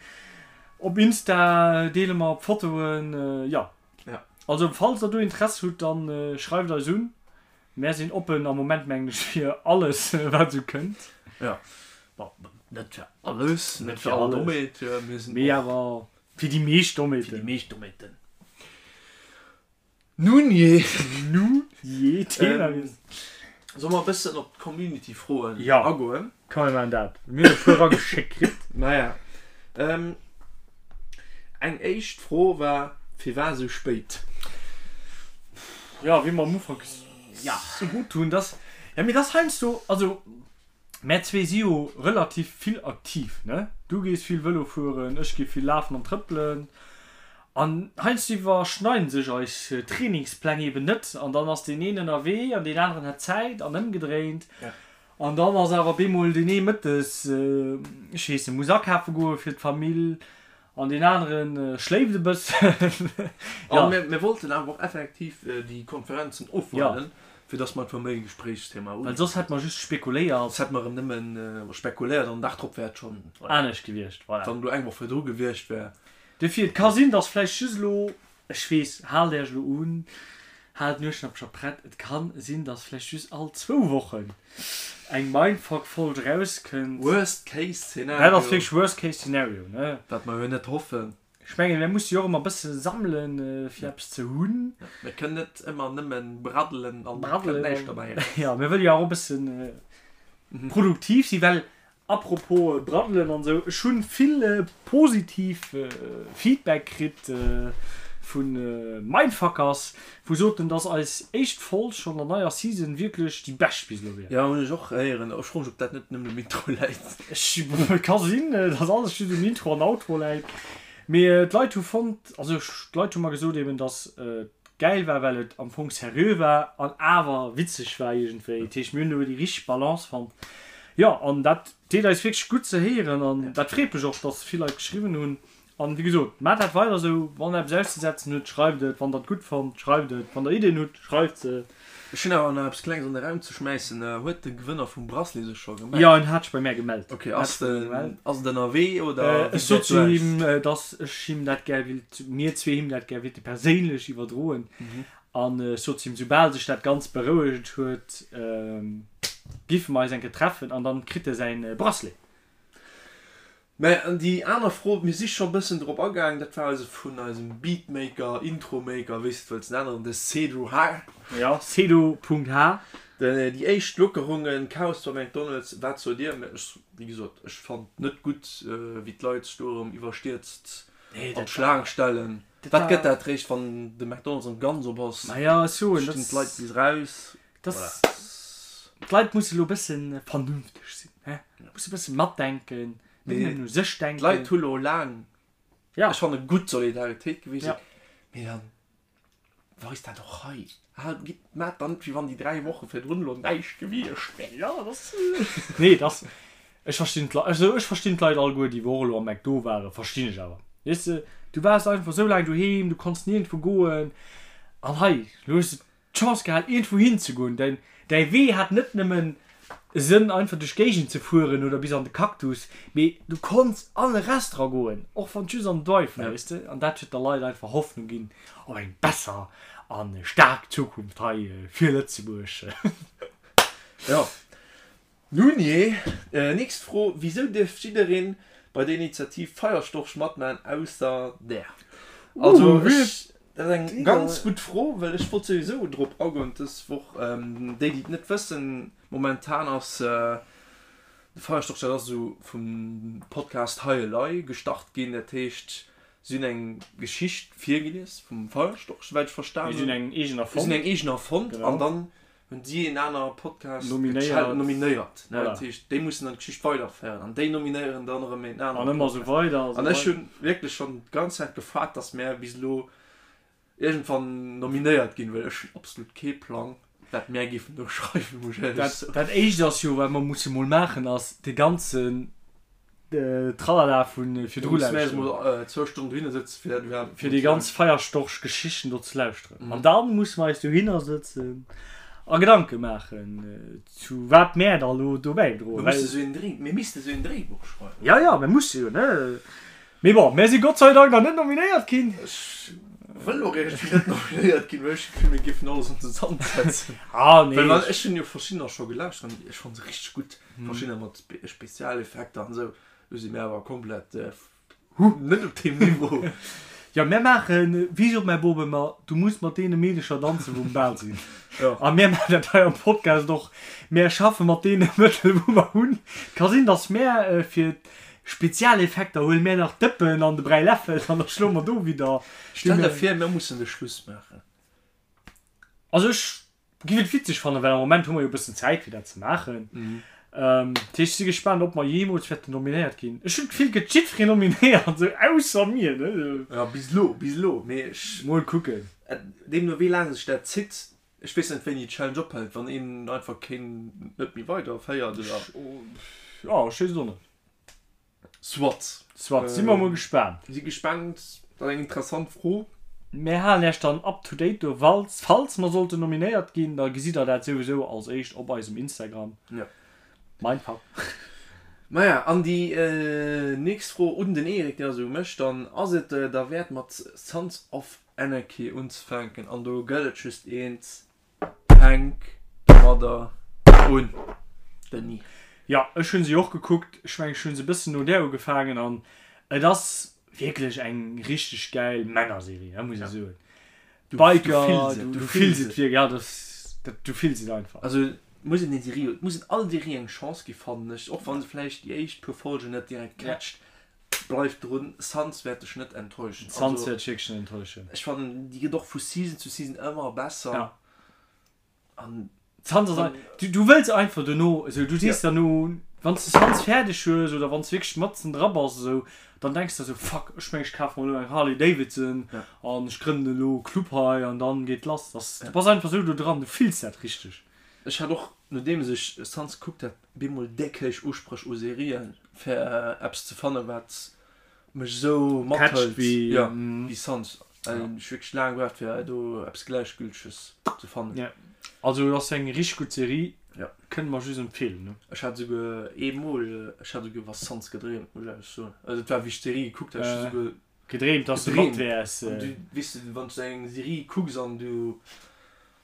Op Insta deele mer Fotoen, jo. Also falls der do Interesse hutt, dann schreift eis un. Mär sinn oppen am Moment mengen ech fir alles wat esou kënnt. Jo, bon, net fir alles, net fir all Domaine, mir sinn och. Mee awer fir déi meescht Domainen. Fir déi meescht Domainen. Nun jee. Nun jee, Thema wiessel. Solle mer e bëssen op d'Community-Froen agoen? Jo, komm mir maachen dat. Mir hunn e puer erageschéckt kritt. Naja. Eng éischt Fro war, Firwat esou spéit? Jo, wéi mer am Ufank gesot hunn, dass, jo, mee dass heiansdo, also Mär zwee si jo relativ vill aktiv, ne? Du gees vill Vëlo fueren, ech gi vill lafen an trëppelen. An heiansdo iwwerschneiden sech eis Trainingspläng eben net an dann ass deen een ënnerwee an deen aneren hätt Zäit an ëmgedréint. An dann ass awer bemol deen ee mëttes, ech weess net, muss akafe goe fir d'Famill An deen aneren schléift e bëssen. An mir wollten awer och effektiv déi Konferenzen ofwaarden, fir dass mer einfach méi Gespréichsthema hunn. Well soss hätte mer just spekuléiert. Soss hätte mer erëm nëmmen spekuléiert an den Dag drop wär et schonn. Anescht gewiescht, voilà. Wann elo eng Woch virdru gewiescht wär. Dofir, et ka sinn, dass vläicht just elo, ech weess, haalt Iech elo un, Haalt d'Nueschnappcher prett, et kann sinn dass vläicht just all zwou Wochen eng Mindfuck Folg erauskënnt. Worst case scenario. Dat ass wierklech worst case scenario, ne? Wat mer jo net hoffen. Ech mengen mir musse jo och ëmmer bësse sammelen fir eppes ze hunn. Mir kënnen net ëmmer nëmmen braddelen an et kënnt näischt dobäi eraus. Jo, mir wëlle jo och e bëssen produktiv sinn, well Apropos Braddelen an esou, ech hunn vill positiv Feedback kritt vun Mindfuckers, wou soten dass eis éischt Folg schonn der neier Season wierklech déi bescht bis elo wier. Jo hunn ech och héieren. Ech froen mech ob dat net nëmmen um Intro läit. Ech ka sinn dass alles just um Intro an Outro läit, mee d'Leit hu fonnt, also d'Leit hu mer gesot eben dass et gäil war well et am Fong seriö war an awer witzeg war iergendwéi. Dat heescht mir hunn do déi richteg Balance fonnt. Jo, an dat deet eis wierklech gutt ze héieren an dat freet mech och, dass vill Leit geschriwwen hunn. An wéi gesot, maacht dat weider esou, wann der eppes auszesetzen hutt, schreift et, wann der et gutt fannt, schreift et, wann der Iddien hutt, schreift se. Ech hunn awer nach eppes Klenges an de Raum ze schmäissen. Huet de Gewënner vum Bracelet sech scho gemellt? Jo, en hat sech bei mär gemellt. Ok, ass den, ass et ënnerwee oder wéi gesäit Ech sot do zu aus? him, dass ech him dat gär willt, mir zwee him dat gär willte perséinlech iwwerdroen. An ech sot zu him, soubal sech dat Ganzt berouegt huet, giffe mer eis eng Kéier treffen an dann kritt e säin Bracelet. Mä an déi aner Fro, mir si scho bëssen drop agaang, dat war eise vun eisem Beatmaker, Intromaker, wéi s de et wëlls nennen, de Cedro H. Jo, Cedro.h. Déi éischt Lockerungen, Chaos bei McDonald's, wat sot Dir? Mä ech, wéi gesot, ech fannt net gutt, wéi d'Leit sech do erëm iwwerstierzt an d'Schlaang stellen. Wat gëtt dat réischt, wann de McDonald's erëm ganz op ass? Maja, ech soen, dat. Stinn d'Leit bis raus. Dass, d'Leit musse lo e bësse vernünfteg sinn, hä? Musse e bësse matdenken. Net nëmmen u sech denken. D'Leit hu lo laang, ech fanne gutt Solidaritéit gewisen, mee dann weist dat och hei. Haalt, gitt, maacht dann net wéi wann déi 3 Woche virdrun elo näischt gewiescht wär. Jo, dat ass, nee, dat ass, ech verstinn d'Leit, also ech verstinn d'Leit alleguer, déi wou och elo am McDo waren, verstinn ech awer. Weess de, du waars einfach esou laang doheem, du konns niergendwou goen an hei, elo hues de d'Chance gehat iergendwou hin ze goen. Däin, däi Wee hat net nëmmen e Sënn einfach duerch d'Géigend ze fueren oder bis an de Cactus, mee du konns an e Restaurant goen, och wann et just an den Drive war, weess de. An dat huet der Leit einfach Hoffnung ginn op eng besser a staark Zukunft hei fir Lëtzebuerg. Jo. Nun jee, nächst Fro, Wisou dierf jiddereen bei der Initiativ Feierstorch matman ausser där? Also ech, dat ass eng ganz gutt Fro, well ech wollt souwisou drop agoen dës Woch. Déi déi et net wëssen, momentan ass de Feierstorch, dat ass esou vum Podcast Hei Elei gestart ginn, dat heescht si hunn eng Geschicht virgelies vum Feierstorch, souwäit ech verstan hunn. Si hunn eng eegen erfonnt. Si hunn eng eegen erfonnt an dann hunn si een aner Podcast nominéiert, nominéiert ne? Dat heescht, déi mussen dann d'Geschicht weiderféieren an déi nominéieren dann erëm een anere An ëmmer esou weider a sou An ech hunn wierklech schonn d'ganz Zäit gefaart, dass mär bis elo iergendwann nominéiert ginn, well ech hunn absolut kee Plang, wat mär géifen do schreiwen, muss ech éierlech soen. Dat éischt ass jo, wat mer musse mol maachen, ass de ganzen Tralala vu virdru lauschteren. Zwou Stonnen dohinner sëtzen, fir dat iwwerhaapt. Fir déi ganz Feierstorch-Geschichten do ze lauschteren. An da musse mer eis dohinner sëtzen a Gedanke maachen, zu wat mär da lo do bäidroen. Mir musse sou een Dréi, mir misste sou een Dréibuch schreiwen. Jo, jo, mir musse jo, ne? Mee bon, mär si Gott sei Dank nach net nominéiert ginn. Ech wëll och iergendwéi net nominéiert ginn, well ech hu d'Gefill, mir géifen alles an den Sand setzen. Ah, nee. Well ech hunn jo verschiddener scho gelauschtert an ech fanne se richteg gutt. Verschiddener mat Spezialeffekter an esou, do si mir awer komplett net op deem Niveau. Jo, mär maachen, wéi sot mäi Bop ëmmer, du muss mat deene Meedecher danzen, wou um Bal sinn. A mär maachen dat hei am Podcast och, mär schaffe mat deene Mëttel, wou mer hunn. Ka sinn, datt mär fir d'Spezialeffekter huele mär nach d'Dëppen an de Bräiläffel an da schloe mer do widder. Stell der vir, mir mussen de Schluss maachen. Also ech Giff et witzeg fannen, well am Moment hu mer jo e bëssen Zäit fir dat ze maachen. Dat heescht, ech si gespaant ob mer jeemools wäerten nominéiert ginn. Ech hunn d'Gefill, et gëtt jiddwereen nominéiert, esou ausser mir, ne? Jo, bis elo, bis elo, mee ech. Mol kucken. Deemno wéi laang sech dat zitt, ech weess net wéini d'Challenge ophält, wann een einfach keen net méi weider féiert oder. Jo, ech weess et och net. Soit. Soit, si mer mol gespaant. Si gespaant, dat ass eng interessant Fro. Mär halen Iech dann up to date do, walls, falls mer sollten nominéiert ginn, da gesitt der dat souwisou als éischt op eisem Instagram. Jo. Mindfuck. Maja, an déi nächst Fro un den Eric, déi ass u mech dann, Ass et derwäert mat Sons of Anarchy unzefänken? An do gëtt et just eent, Fänk domadder un, Denis. Jo, ech hunn se jo och gekuckt. Ech mengen, ech hunn se e bëssen no där ugefaangen an et ass wierklech eng richteg gäil Männerserie, dat muss ech soen. D'Biker, du fills et wierklech, ja, dat, dat, du fills et einfach. Also et muss een déi Serie, et muss een all Serie eng Chance gi fannen ech, och wann se vläicht déi éischt puer Folgen net direkt catcht. Bleif drun, Sons wäert dech net enttäuschen. Sons wäert dech wierklech net enttäuschen. Ech fannen déi gëtt och vu Season zu Season ëmmer besser. Ja. An Sons ass ein, du, du wëlls einfach dono, esou du sees ja. derno, wann s de Sons fäerdeg hues oder wann s wierklech matzen dra bass esou, dann denks de esou, fuck, ech meng ech kafe mer elo eng Harley Davidson ja. an ech grënnen elo e Club hei an dann geet lass. Das, ja. Du bass einfach esou do dran, du fills dat richteg. Ech hat och, nodeems ech Sons gekuckt hat, bemol déck héich Uspréch u Serien fir eppes ze fannen wat mech esou mathëlt wéi Sons. Well ech wierklech laang gebraucht fir do eppes gläichgülteges ze fannen. Jo, also et ass eng richteg gutt Serie, kënne mer just empfeelen ne. Ech hat esouguer eemol, ech hat esouguer iwwer Sons gedreemt, muss ech éierlech soen. Also et war wéi ech d'Serie gekuckt hat, ech hu esouguer Gedreemt dass de mat wäers. An du, weess de, wann s du eng Serie kucks an du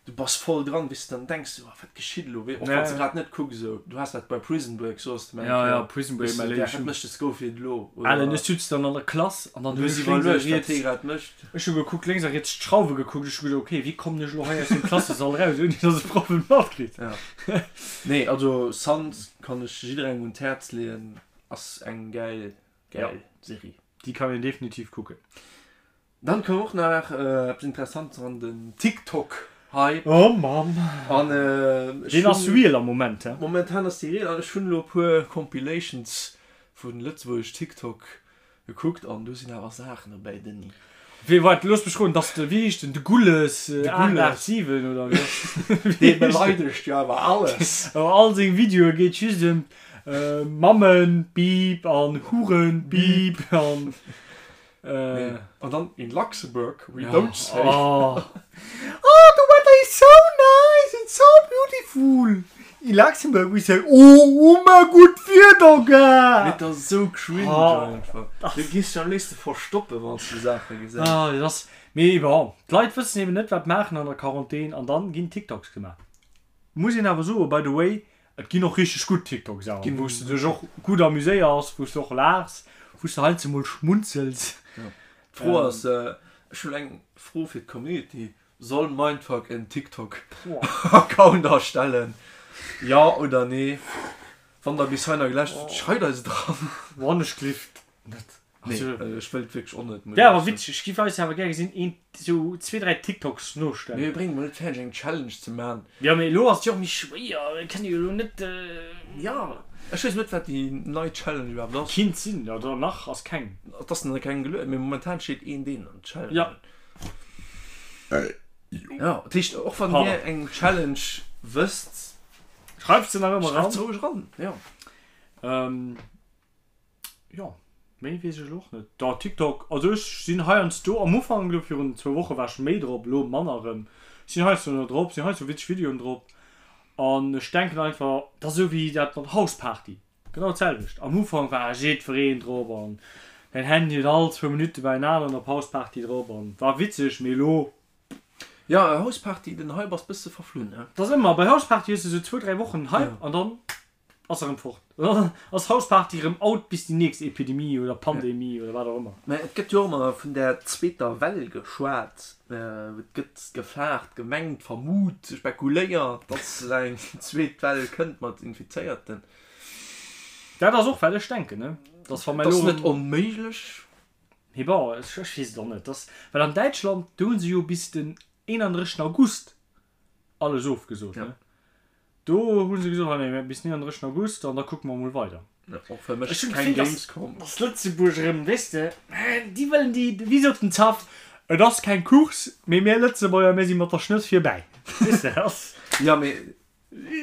Du bass voll dran, weess de, dann denks du, oh, wat geschitt elo, wéi, och wann s de grad net kucks esou. Du has dat bei Prison Break, soss de mir eng Kéier, Ja, ja, Prison Break, weess de, mäi wat Léif. mécht de Scofield elo, oder? Alen, ech sutz dann an der Klass an dann Du hunn hues ech lénks a iwwerluecht, wat riets, hie grad mécht. ech hu gekuckt, lénks a riets d'Schrauwe gekuckt, ech hu geduecht, okay, wéi kommen ech elo hei aus dem Klassesall raus, ouni dass e Proff et matkritt? Ja. Nee, also Sons kann ech jidderengem un d'Häerz leeën, ass eng gäil, gäil Serie. Déi kann een definitiv kucken. Dann koum och nach eppes Interessantes eran, den TikTok Hype. Oh Mann! An ech Deen ass hunn. real am Moment, he? Momentan ass dee real an ech hunn elo e puer Compilations. Vu Lëtzebuergesch TikTok gekuckt an do sinn awer Saachen dobäi, Denis. Wee waart, looss mech roden, dass de, wéi heescht en, de Gulles 887 oder wéi ass Dee beleidegt jo awer alles. Awer all seng Videoe geet just ëm Mammen, Beep an Huren, Beep an. An dann in Luxembourg we don't say. Oh, oh the weather is so nice and so beautiful. In Luxembourg we say oh ëmmer gutt Wieder gell. Mee et ass esou cringe einfach. Du gees dech am léifste verstoppen wann s du Saache gesäis. Ah dat ass, mee bon, d'Leit wëssen eben net wat maachen an der Quarantän an dann ginn TikToks gemaach. Muss een awer soen, by the way, Et ginn och richteg gutt TikToks awer, wou s de dech och gutt amuséiers, wou s de och laachs, wou s de heiansdo mol schmunzels. D'Fro ass, ech hunn eng Fro fir d'Community, Soll Mindfuck en TikTok Account erstellen? Jo oder nee? Wann der bis hei nach gelauschtert hutt, schreit eis et eran. Wann ech gelift net. Nee, ech wëll et wierklech och net. Wär awer witzeg, ech giff eis awer gär gesinn een sou zwee dräi TikToks nostellen. Mee mir bréngen mol net fäerdeg eng Challenge ze man. Jo mee elo ass et jo och méi schwéier, mir kënne jo elo net. Jo, ech weess net wat déi nei Challenge iwwerhaapt ass. Kinnt sinn, oder nach ass keng. Et ass nach keng gelueden, mee momentan steet een deen an Challenge. Jo. Jo, dat heescht och wann dir eng Challenge wësst. Schreift se nach ëmmer eran. Schreift se roueg eran, jo. Jo, méi weess ech elo och net. Da TikTok, also ech sinn heiansdo, am Ufank elo virun zwou Woche war ech méi drop, elo manner erëm. Ech sinn heiansdo nach drop, sinn heiansdo witzeg Videoen drop an ech denken einfach, dat ass esou wéi dat mat Houseparty, genau d'selwecht. Am Ufank war jiddwereen drop an däin Handy huet all zwou Minutte bei en aneren op Houseparty drop an war witzeg, mee elo. Jo, Houseparty, den Hype ass bësse verflunn, ne? Dat ass ëmmer, bei Houseparty hues de esou zwou, dräi Wochen Hype an dann. Ass erëm fort. Dann ass Houseparty erëm out bis déi nächst Epidemie oder Pandemie oder wat och ëmmer. Mä et gëtt jo och ëmmer vun där zweeter Well geschwat. Et gëtt gefaart, gemengt, vermut, spekuléiert, datt eng zweet Well kënnt mat Infizéierten. Dat ass och wat ech denken, ne? Dass wa mer elo. Et ass net onméiglech. Mee bon, ech weess et och net. Dass, well an Däitschland, do hu se jo bis den 31 August alles ofgesot, ne? Do hu se gesot, hei nee, bis 39 August an da kucke mer mol weider. Och fir mech keng Gamescom. Dass Lëtzebuerg erëm, weess de, déi wëllen déi, wéi sot den Zaff, et ass keng Course, mee mir Lëtzebuerger, mir si mat der Schnëss virbäi. Weess de, ass. Jo, mee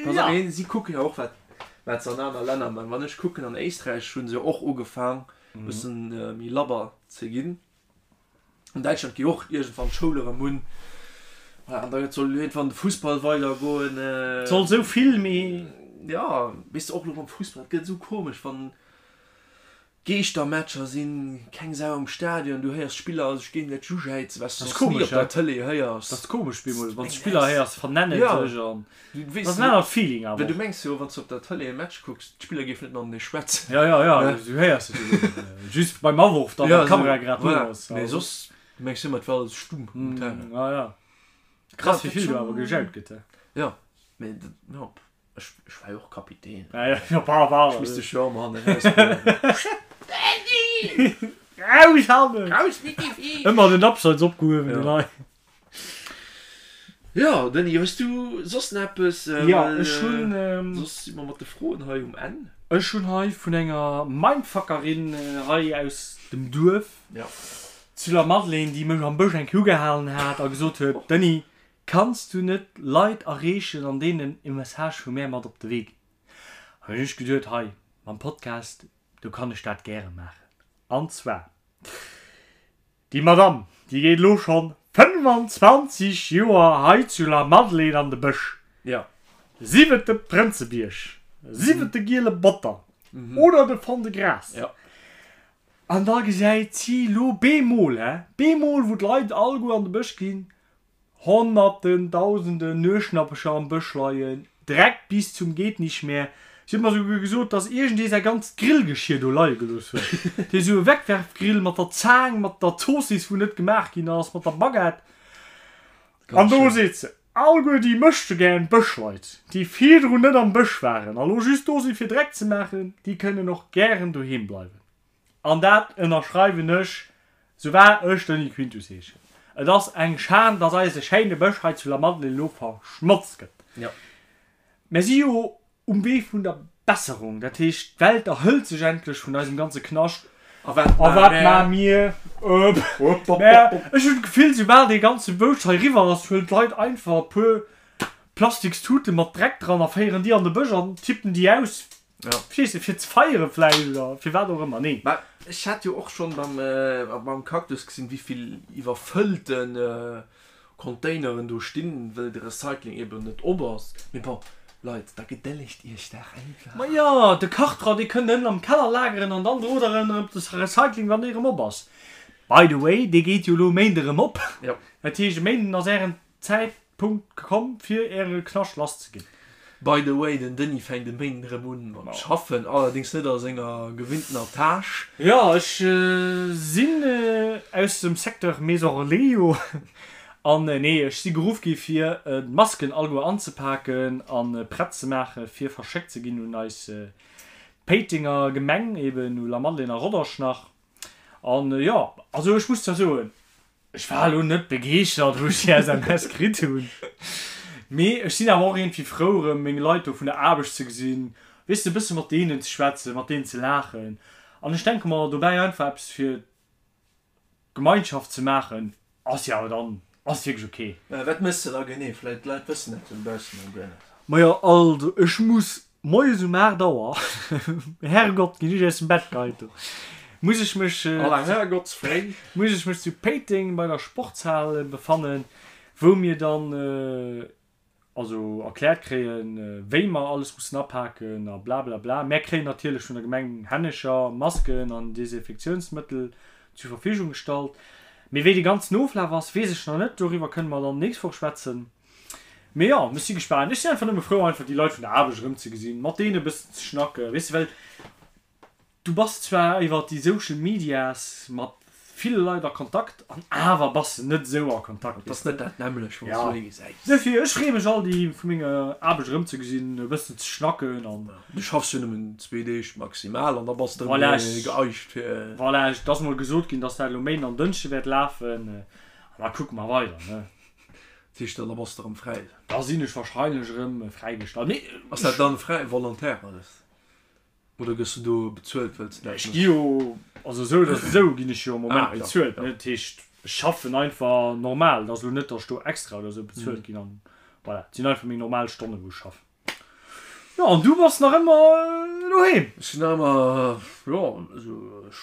pass op, mee si kucken jo och, wat, wat se an aner Länner maachen. Wann ech kucken, an Éisträich hu se jo och ugefaang, e bëssen méi labber ze ginn. An Däitschland gi och iergendwann d'Schoul erëm un. Voilà, an da soll iergendwann de Fussball weidergoen. Et soll esou vill méi. Jo, weess de, och elo mam Fussball, et gëtt esou komesch, wann Geeschtermatcher sinn, keng Sau am Stadion, du héiers d'Spiller sech géingesäiteg ujäizen, wat s du soss ni op der Tëlee héiers. Dat ass komesch, bemol, wann s d'Spiller héiers vernennen sech an dat ass en anert Feeling awer och. Du mengs jo, wann s du op der Tëlee e Match kucks, d'Spiller géifen net matenee schwätzen. Jo, jo, jo, du héiers et jo net. Just beim Aworf dann, wann d'Kamera grad do ass. Mee soss, du mengs ëmmer, et wär alles stumm um Terrain. Jo, jo. Krass, wéi vill do awer gejaut gëtt, he? Jo, mee jo, ech war jo och Kapitän. Ja, jo, jo, par, par. Ech misst dech jo ëmmer hannen erausbréngen. Danny! Raus hannen! Raus mit die Viech! Ëmmer den Abseits opgehuewen, den hei. Jo, Denis, hues du soss nach eppes? Jo, ech hunn. Soss si mer mat de Froen hei um Enn. Ech hunn hei vun enger Mindfuckerin hei aus dem Duerf zu La Madeleine, déi mech am Bësch eng Kéier ugehalen hat a gesot huet, Denis, kanns du net Leit erreechen an deenen e Message vu mär mat op de Wee ginn? An hunn ech geduet, hei mam Podcast, do kann ech dat gäre maachen. An zwar. Déi Madame, déi geet elo schonn 25 Joer hei zu Lamadelaine an de Bësch, sief et de Prënzebierg, sief et de Giele Botter oder de Fond-de-Gras. An da gesäit si elo bemol, hä, bemol, wou d'Leit alleguer an de Bësch ginn, Honnerten, Dausenden Nueschnappecher am Bësch leien, Dreck bis zum Gehtnichtmehr. Si huet mer souguer gesot, dass iergendee säi ganzt Grillgeschier do leie gelooss huet. Dee sou e Wegwerfgrill mat der Zaang, mat der Zoossiss, wou net gemaach ginn ass, mat der Baguette. An do seet se, Alleguer déi möchtegern Bëschleit, déi virdrun net am Bësch waren a lo just do si fir Dreck ze maachen, déi kënnen och gären doheem bleiwen. An dat ënnerschreiwen ech, sou wahr ech Denis Quintus heeschen. Et ass eng Schan, dass eise schéine Bësch hei zu Lamadelaine elo verschmotzt gëtt. Mir si jo um Wee vun der. Besserung. Dat heescht, d'Welt erhëlt sech endlech vun eisem ganze Knascht. A wat maache mir? Mä ech hunn d'Gefill, soubal dee ganze Bouscht hei eriwwer ass, huelen d'Leit einfach e puer Plastikstute mat Dreck dran a féieren déi an de Bësch an tippen déi aus. Verstees de? Fir ze feiere vläicht oder fir wat och ëmmer. Nee. Mä ech hat jo och schonn beim Cactus gesinn, wéi vill iwwerfëllte Containeren do stinn, wëll de Recycling eben net op ass. Mee bon, Leit, da gedëllegt iech dach einfach. Ma jo, de Kartra, dee kënnt ënnen am Keller lageren an dann drot der en erëm de Recycling, wann dee erëm op ass. By the way, dee geet jo elo e Méinde erëm op. Jo. Dat heescht, e Méinden ass ären Zäitpunkt komm, fir äre Knascht lasszeginn. By the way, den Denis fänkt e Méinden erëm un mat schaffen, allerdéngs net a senger gewinntener Tâche. Jo, ech sinn aus dem Secteur Maison Relais jo. An nee, ech si geruff gi fir d'Masken alleguer anzepaken a prett ze maache fir verschéckt ze ginn un eis Péitenger Gemeng, eben u Lamadelaine a Rodange nach. An jo, also ech muss zwar soen, Ech war elo net begeeschtert wou ech déi SMS kritt hunn, mee ech sinn awer och iergendwéi frou erëm meng Leit do vun der Aarbecht ze gesinn, weess de, e bësse mat deenen ze schwätzen, mat deenen ze laachen an ech denke mer dobäi einfach eppes fir d'Gemeinschaft ze maachen ass jo awer dann ass wierklech ok. Wat méchs de da genee? Vläit d'Leit wëssen dat jo dobaussen nach guer net. Majo also ech muss Moies um 8 Auer, Herrgott, ginn ech aus dem Bett geheit do, muss ech mech, Aller Herrgottsfréi. muss ech mech zu Péiteng bei der Sportshal befannen, wou mir dann also erkläert kréien, wéi mer alles mussen apaken a blablabla. Mär kréien natierlech vun der Gemeng Hännecher Masken an Desinfektiounsmëttel zur Verfügung gestallt. Mee wéi de ganzen Oflaf ass, weess ech nach net. Doriwwer kënne mer dann nächst Woch schwätzen. Mee jo, ech si gespaant. Ech sinn einfach nëmme frou, einfach déi Leit vun der Aarbecht erëmzegesinn, mat deenen e bëssen ze schnacken, weess de, well du bass zwar iwwer déi Social Medias mat ville Leit a Kontakt an awer bass de net esou a Kontakt, Et ass net dat nämmlecht, wann s du ee gesäis. Duerfir, ech freeë mech all déi vu menger Aarbecht erëmzegesinn, e bëssen ze schnacken an. Du schaffs jo nëmmen zwee Deeg maximal an da bass de erëm geeicht fir. Voilà, et ass mol gesot ginn, dass dat elo Méinden an Dënschde wäert lafen an da kucke mer weider, ne. Dat heescht, da bass de erëm fräi? Da sinn ech wahrscheinlech erëm fräigestallt. Mee. Ass dat dann fräi, volontaire alles? Oder gëss de do bezuelt, wëlls de dat Ech gi jo, also esou oder esou ginn ech jo am Moment bezuelt, ne? Dat heescht, ech schaffen einfach normal. Et ass elo net, datt ech do extra oder esou bezuelt ginn an voilà, et sinn einfach meng normal Stonnen, wou ech schaffen. Jo, an du bass nach ëmmer doheem? Ech sinn nach ëmmer, jo, also ech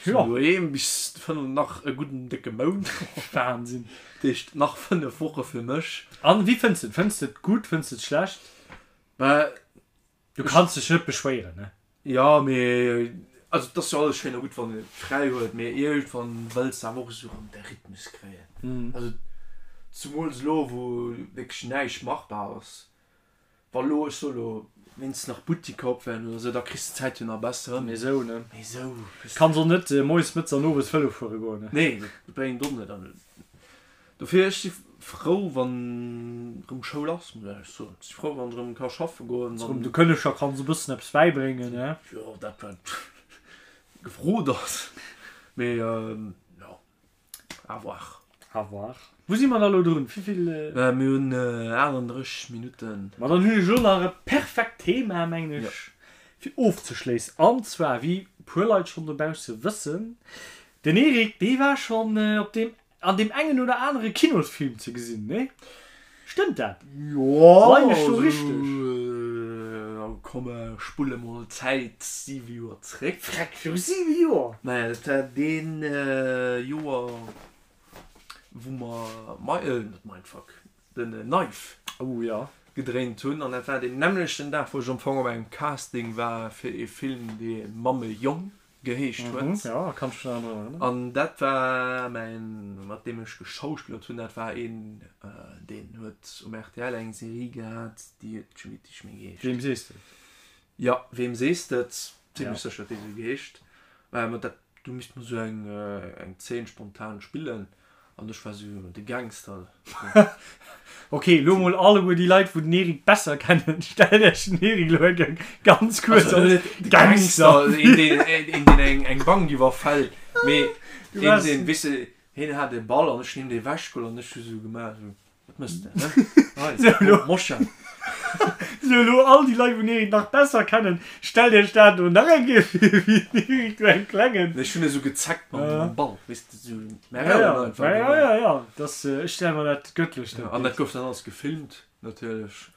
sinn doheem bis 5, nach e gudden décke Mount. Wahnsinn. Dat heescht nach 5 Woche fir mech. An wéi fënns de et? Fënns de et gutt, fënns de et schlecht? Bah. Du kanns dech net beschwéieren, ne? Jo, mee also et ass jo alles schéin a gutt, wann een et fräi huet, mee iergendwann wëlls de awer och esou erëm de Rhythmus kréien. Also zemools elo, wou wierklech näischt machbar ass. Wa lo, ech soe lo, wéinstens nach Buttiker op wären oder sou, da kriss de d'Zäit jo nach besser ëm. Mee sou, ne? Mee sou. Kanns och net moies, mëttes an owes Vëlo fuere goen, ne? Nee, dat bréngt och net. An dofir, ech si frou, wann erëm Schoul ass, muss ech éierlech soen. Ech si frou, wann ech erëm ka schaffe goen, wann. De Kënneger kanns e bëssen eppes bäibréngen, ne? Jo, dat wat gefrot ass. Mee jo. À voir. À voir. Wou si mer da lo drun? Wéivill? Mir hunn 38 Minutten. Ma dann hunn ech elo nach e perfekt Thema, mengen ech, fir ofzeschléissen. An zwar, wéi e puer Leit schonn dobausse wëssen, den Eric, dee war schonn op deem, an deem engen oder anere Kinosfilm ze gesinn, nee? Stëmmt dat? Jo, Leien ech do richteg? Komm, ech spulle mol d'Zäit 7 Joer zréck. Freck, viru 7 Joer? Naja, dat war deen Joer, wou mer, net Mindfuck, den Knife Oh jo. gedréint hunn. An dat war deen nämmlechten Dag, wou ech am Fong op engem Casting war fir ee Film, dee Mamme Jong geheescht huet. Jo, kann ech mech nach drun erënneren. An dat war mäin, mat deem ech geschauspillert hunn, dat war een, deen huet um rtl eng Serie gehat, déi huet, ech weess nicht méi geheescht. Weem sees de et? Jo, Weem sees de et? Zimlech sécher, datt déi esou geheescht. Mä dat, do misst mer esou eng, eng Zeen spontan spillen. An ech war sou de Gangster. Ok, lo mol alleguer déi Leit wou den Eric besser kennen, stellt iech den Eric lo eng ganz kuerz als Gangster vir. Een deen eng eng Bank iwwerfält, mee een deen, weess de, hien hat e Ball an ech hunn him dee wechgeholl an ech hu sou gemaach sou, wat mëss de, hä? Hei, Moscha. Sou elo all déi Leit wou den Eric nach besser kennen, stellt iech dat elo nach eng Kéier vir wéi den Eric do engem klengen. Ech hunn esou gezeckt mam Ball, weess de, sou mä rauen einfach. Ja ja ja, dass ech stelle mer dat gëttlech dat. An dat gouf dann alles gefilmt natierlech,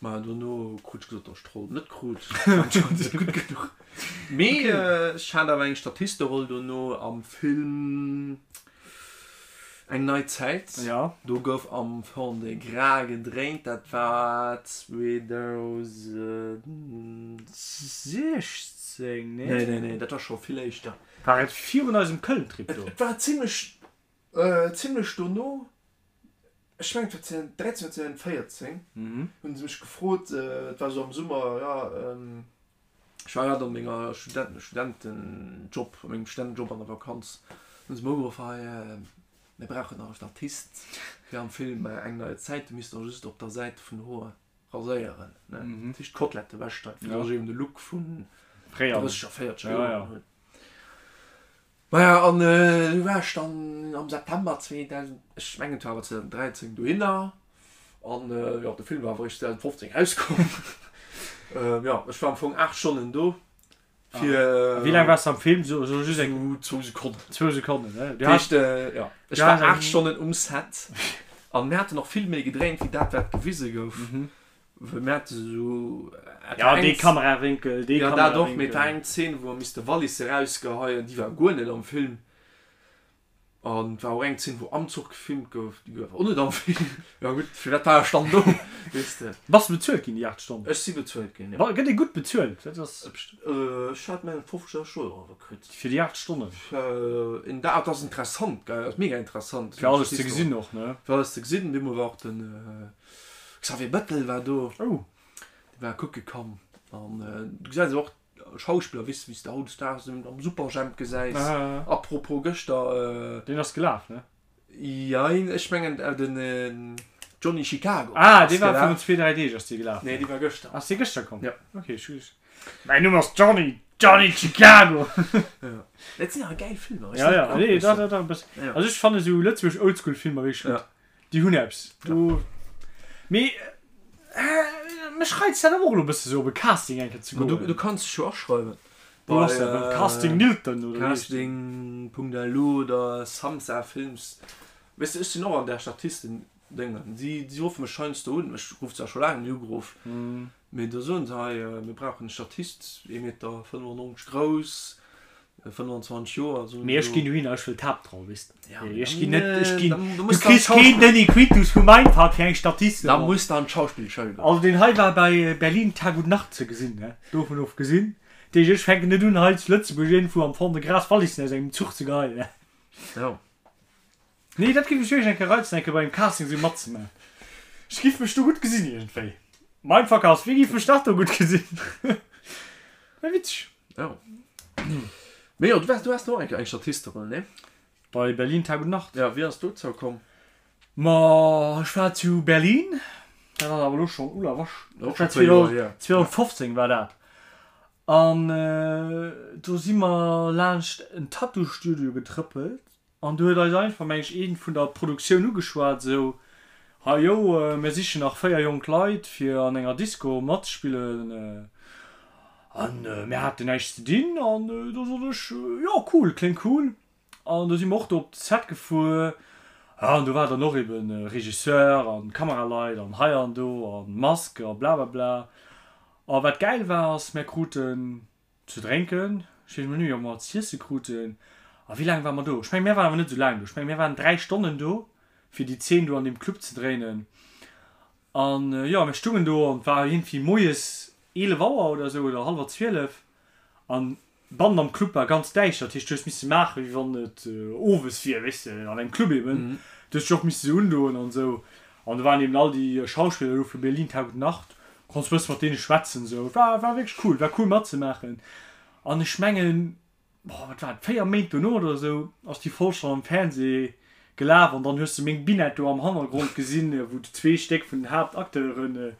ma dono krut ech gesot, dass ech d'Roll net krut, anscheinend net gutt genuch. Mee ech hat awer eng Statisteroll dono am Film. Eng nei Zäit, Ja. do gouf am Fond-de-Gras gedréint, dat war 2016, nee? Nee, nee, nee, dat war scho vill éischter. War et virun eisem Köln-Trip do? Et war zimlech, zimlech dono, ech mengen et war 2013 oder 2014, hunn se mech gefrot, et war esou am Summer, jo, Ech war grad an menger Student Studentenjob, a mengem Studentenjob an der Vakanz, hunn se mer ugeruff, hei mir brauchen nach e Statist fir am Film Eng neue Zäit, du misst der just op der Säit vun de Hoer raséieren, ne, dat heescht d'Kotlette ewechschneiden, fir dass ech eben de Look vun 30 a 40 Joren hunn. Maja, an du war ech dann am September 2000, ech mengen et war awer 2013, dohinner. An jo, de Film war awer eréischt 2015 erauskomm. Jo, ech war am Fong 8 Stonnen do fir. A wéi laang waars de am Film? So just eng. Zwou Sekonnen. Zwou Sekonnen, ne? Dat heescht, jo, ech war 8 Stonnen um Set an mir haten och vill méi gedréint wéi dat, wat gewise gouf. Well mir hate sou. Ja, dee Kamerawénkel, dee Kamerawénkel. Ja, dat och, mee et war eng Zeen, wou mer misste Wallisse rausgeheien, déi war guer net am Film. An et war och eng Zeen, wou am Zuch gefilmt gouf, déi gouf och net am Film. Ja gutt, firwat war ech dann do, weess de. Bass de bezuelt ginn, déi 8 Stonnen? Ech si bezuelt ginn, jo. Gëtt ee gutt bezuelt? Dat ass. Ech hat mengen 50 Euro kritt. Fir déi 8 Stonnen? Fir een Dag, dat ass interessant, gell, dat ass mega interessant. Fir alles ze gesinn och, ne? Fir alles ze gesinn. Deemol war och den. Xavier Bettel war do. Oh. Dee war kucke komm. An du gesäis awer och Schauspiller, weess de, wéi s de hautdesdaags am Superjhemp gesäis. A propos gëschter. Deen ass gelaf, ne? Jein, ech mengen den Johnny Chicago. Ah, dee war virun zwee, dräi Deeg ass dee gelaf. Nee, dee war gëschter. Ass dee gëschter komm? Ja. Ok, ech hu. Mäin Numm ass Johnny, Johnny Chicago. Ja. Dat sinn awer gäil Filmer. Ja, ja, nee, dach, dach, dach e bëssen. Also ech fanne sou lëtzebuergesch Oldschool-Filmer wierklech gutt. Déi hunn eppes do. Mee mech reizt dat awer och elo e bësse sou op e Casting eng Kéier ze goen. Du kanns dech jo aschreiwen. Wou ass dat? Beim Casting Nilton oder wéi heescht dat? Casting.lu oder Samsa Films. Weess de, ech sinn och an där Statisten-Déngen. Si ruffe mech heiansdo un. Mech rufft zwar scho laang net ugeruff, mee da soen se, hei, mir brauchen e Statist, ee Meter 95 grouss, 25 Joer, esou. Mee ech ginn dohinner, ech wëll d'Haaptroll, weess de. Ja, mee ech ginn net, ech ginn, du kriss keen Denis Quintus vu Mindfuck fir eng Statisteroll. Da muss de an d'Schauspillschoul goen. Also deen hei war bei Berlin Tag und Nacht ze gesinn, ne, dovun ofgesinn. Dat heescht, ech fänken net un hei zu Lëtzebuerg iergendwou am Fond-de-Gras Wallissen aus engem Zuch ze geheien, ne. Jo. Nee, dat géif mech wierklech eng Kéier reizen, eng Kéier bei engem Casting esou matzemaachen. Ech giff mech do gutt gesinn iergendwéi. Mindfuck ass, wéi giff mech nach do gutt gesinn? Wär witzeg. Jo. Mee jo, du waars, du haas och eng Kéier eng Statisteroll, nee? Bei Berlin Tag und Nacht. Ja, wéi ass dozou komm? Ma ech war zu Berlin, dat ass awer elo schonn, ulla wasch, Och schon e puer Joer hier. 2015 war dat. An do si mer laanscht en Tattoo-Studio getrëppelt An du huet eis einfach, meng ech, een vun der Produktioun ugeschwat, esou, Hei jo, mir sichen nach 4 jonk Leit fir an enger Disco matzespillen. An mir haten näischt ze dinn an do sot ech, Jo, cool, kléngt cool. An do si mer och do op de Set gefuer. Ja, an do war dann och eben Regisseur an Kameraleit an hei an do an Mask a blablabla. A wat gäil war, ass, mir kruten Ze drénken, ech weess emol net méi, ob mer z'iesse kruten. A wéi laang ware mer do? Ech mengen, mir waren awer net esou laang do. Ech mengen, mir waren 3 Stonnen do, fir déi Zeen do an deem Club ze dréinen. An jo, mir stungen do an et war iergendwéi moies 11 Auer oder esou oder hallwer 12. An bannen am Club war ganz däischter. Dat heescht, du hues misse maachen, wéi wann et owes wier, weess de, an engem Club eben. Du hues dech och misse sou undoen an esou. An do waren eben all déi Schauspiller do vu Berlin Tag und Nacht. Konns bësse mat deene schwätzen sou. War war wierklech cool, war cool matzemaachen. An ech mengen, boah, wat war et, 4 Méint dono oder sou ass déi Folg schonn am Fernseh gelaf an dann hues de meng Binette do am Hannergrond gesinn, wou zwee Stéck vun den Haaptacteuren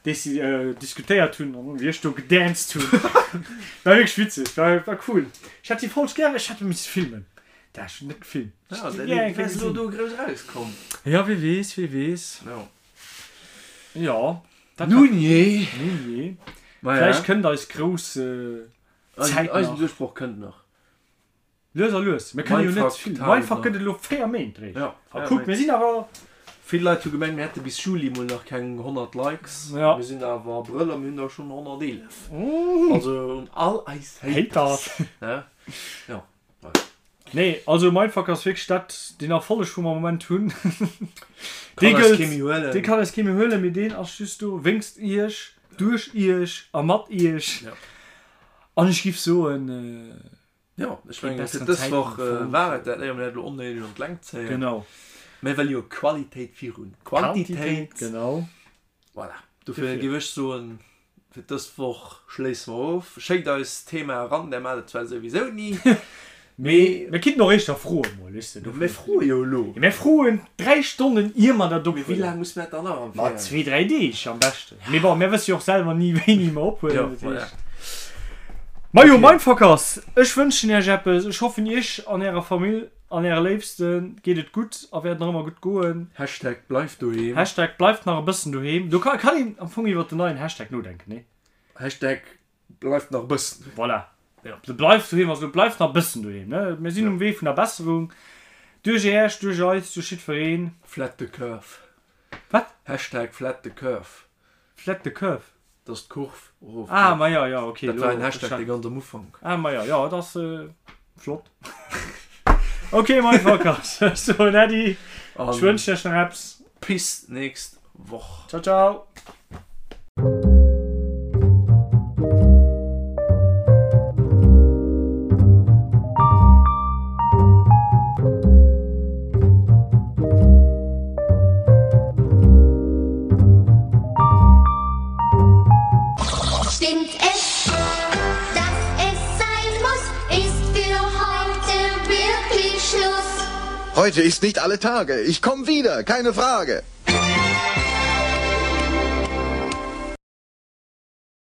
déci diskutéiert hunn an wéi ech do gedanced hunn. War wierklech witzeg, war war cool. Ech hätt déi Folg gären, ech hätt misse filmen. Dat ech hunn net gefilmt. Ja, dann wärs elo do grouss erauskomm. Ja, wie weess, wie weess. Jo. Jo. Dat Nun jee. Nun jee. Vläicht kënnt eis grouss Zäit nach. Eisen Duerchbroch kënnt nach. Lues a lues. Mir kënne jo net vill. Mindfuck gëtt et elo 4 Méint réischt. Ja, A kuck, mir sinn awer. Vill Leit hu gemengt, mir hätte bis Juli mol nach keng 100 Likes. Ja. Mir sinn awer Abrëll a mir hunn der schonn 111. Also un all eis Haters. Haters. Ja. Nee, also Mindfuck ass wierklech dat, deen Erfolleg wou mer am Moment hunn. Dee Kann eis gëllt, kee méi huelen. dee kann eis kee méi huelen, mee deen ass just do wéngst iech, duerch iech a mat iech. Ja. An ech giff soen. Jo, ech mengen fir dës Woch war et dat, éier mir dat elo onnéideg an d'Längt zéien. Genau. Mir wëlle jo Qualitéit virun Quantitéit. Genau. Voilà, dofir géif ech soen, fir dës Woch schléisse mer of. Schéckt eis Thema eran, där maacht et zwar souwisou ni, mee. Mir kinnten och éischter froe mol, weess de. Mir froe jo elo. Mir froen 3 Stonnen ier mer dat ophuelen. Mee wéi laang muss mer dat dann nach am Ma zwee, dräi Deeg am beschten. Mee bon, mir wësse jo och selwer ni wéini mer ophuelen. Jo, voilà. Majo, Mindfuckers, ech wënschen iech eppes. Ech hoffen iech an ärer Famill an äre Léifste geet et gutt a wäert nach ëmmer gutt goen. Hashtag bleift doheem. Hashtag bleift nach e bëssen doheem. Do kann een am Fong iwwert den neien Hashtag nodenken, nee? Hashtag Bleift nach e bëssen. Voilà. Ja. De bleift doheem, also bleift nach e bëssen doheem, ne? Mir sinn um Wee vun der Besserung. Duerch Äech, duerch eis, duerch jiddwereen. Flat the curve. Wat? Hashtag flat the curve. Flat the curve? Dass d'Kurv erof geet. Ah, ma jo, jo, okay. Dat war en Hashtag, dee ganz am Ufank. Ah, ma jo, jo, dat ass flott. Ok, Mindfuckers, ech soen Äddi. Ech wënschen iech nach eppes. Bis nächst Woch. Ciao, ciao. Stimmt es, dass es sein muss, ist für heute wirklich Schluss. Heute ist nicht alle Tage. Ich komm wieder, keine Frage.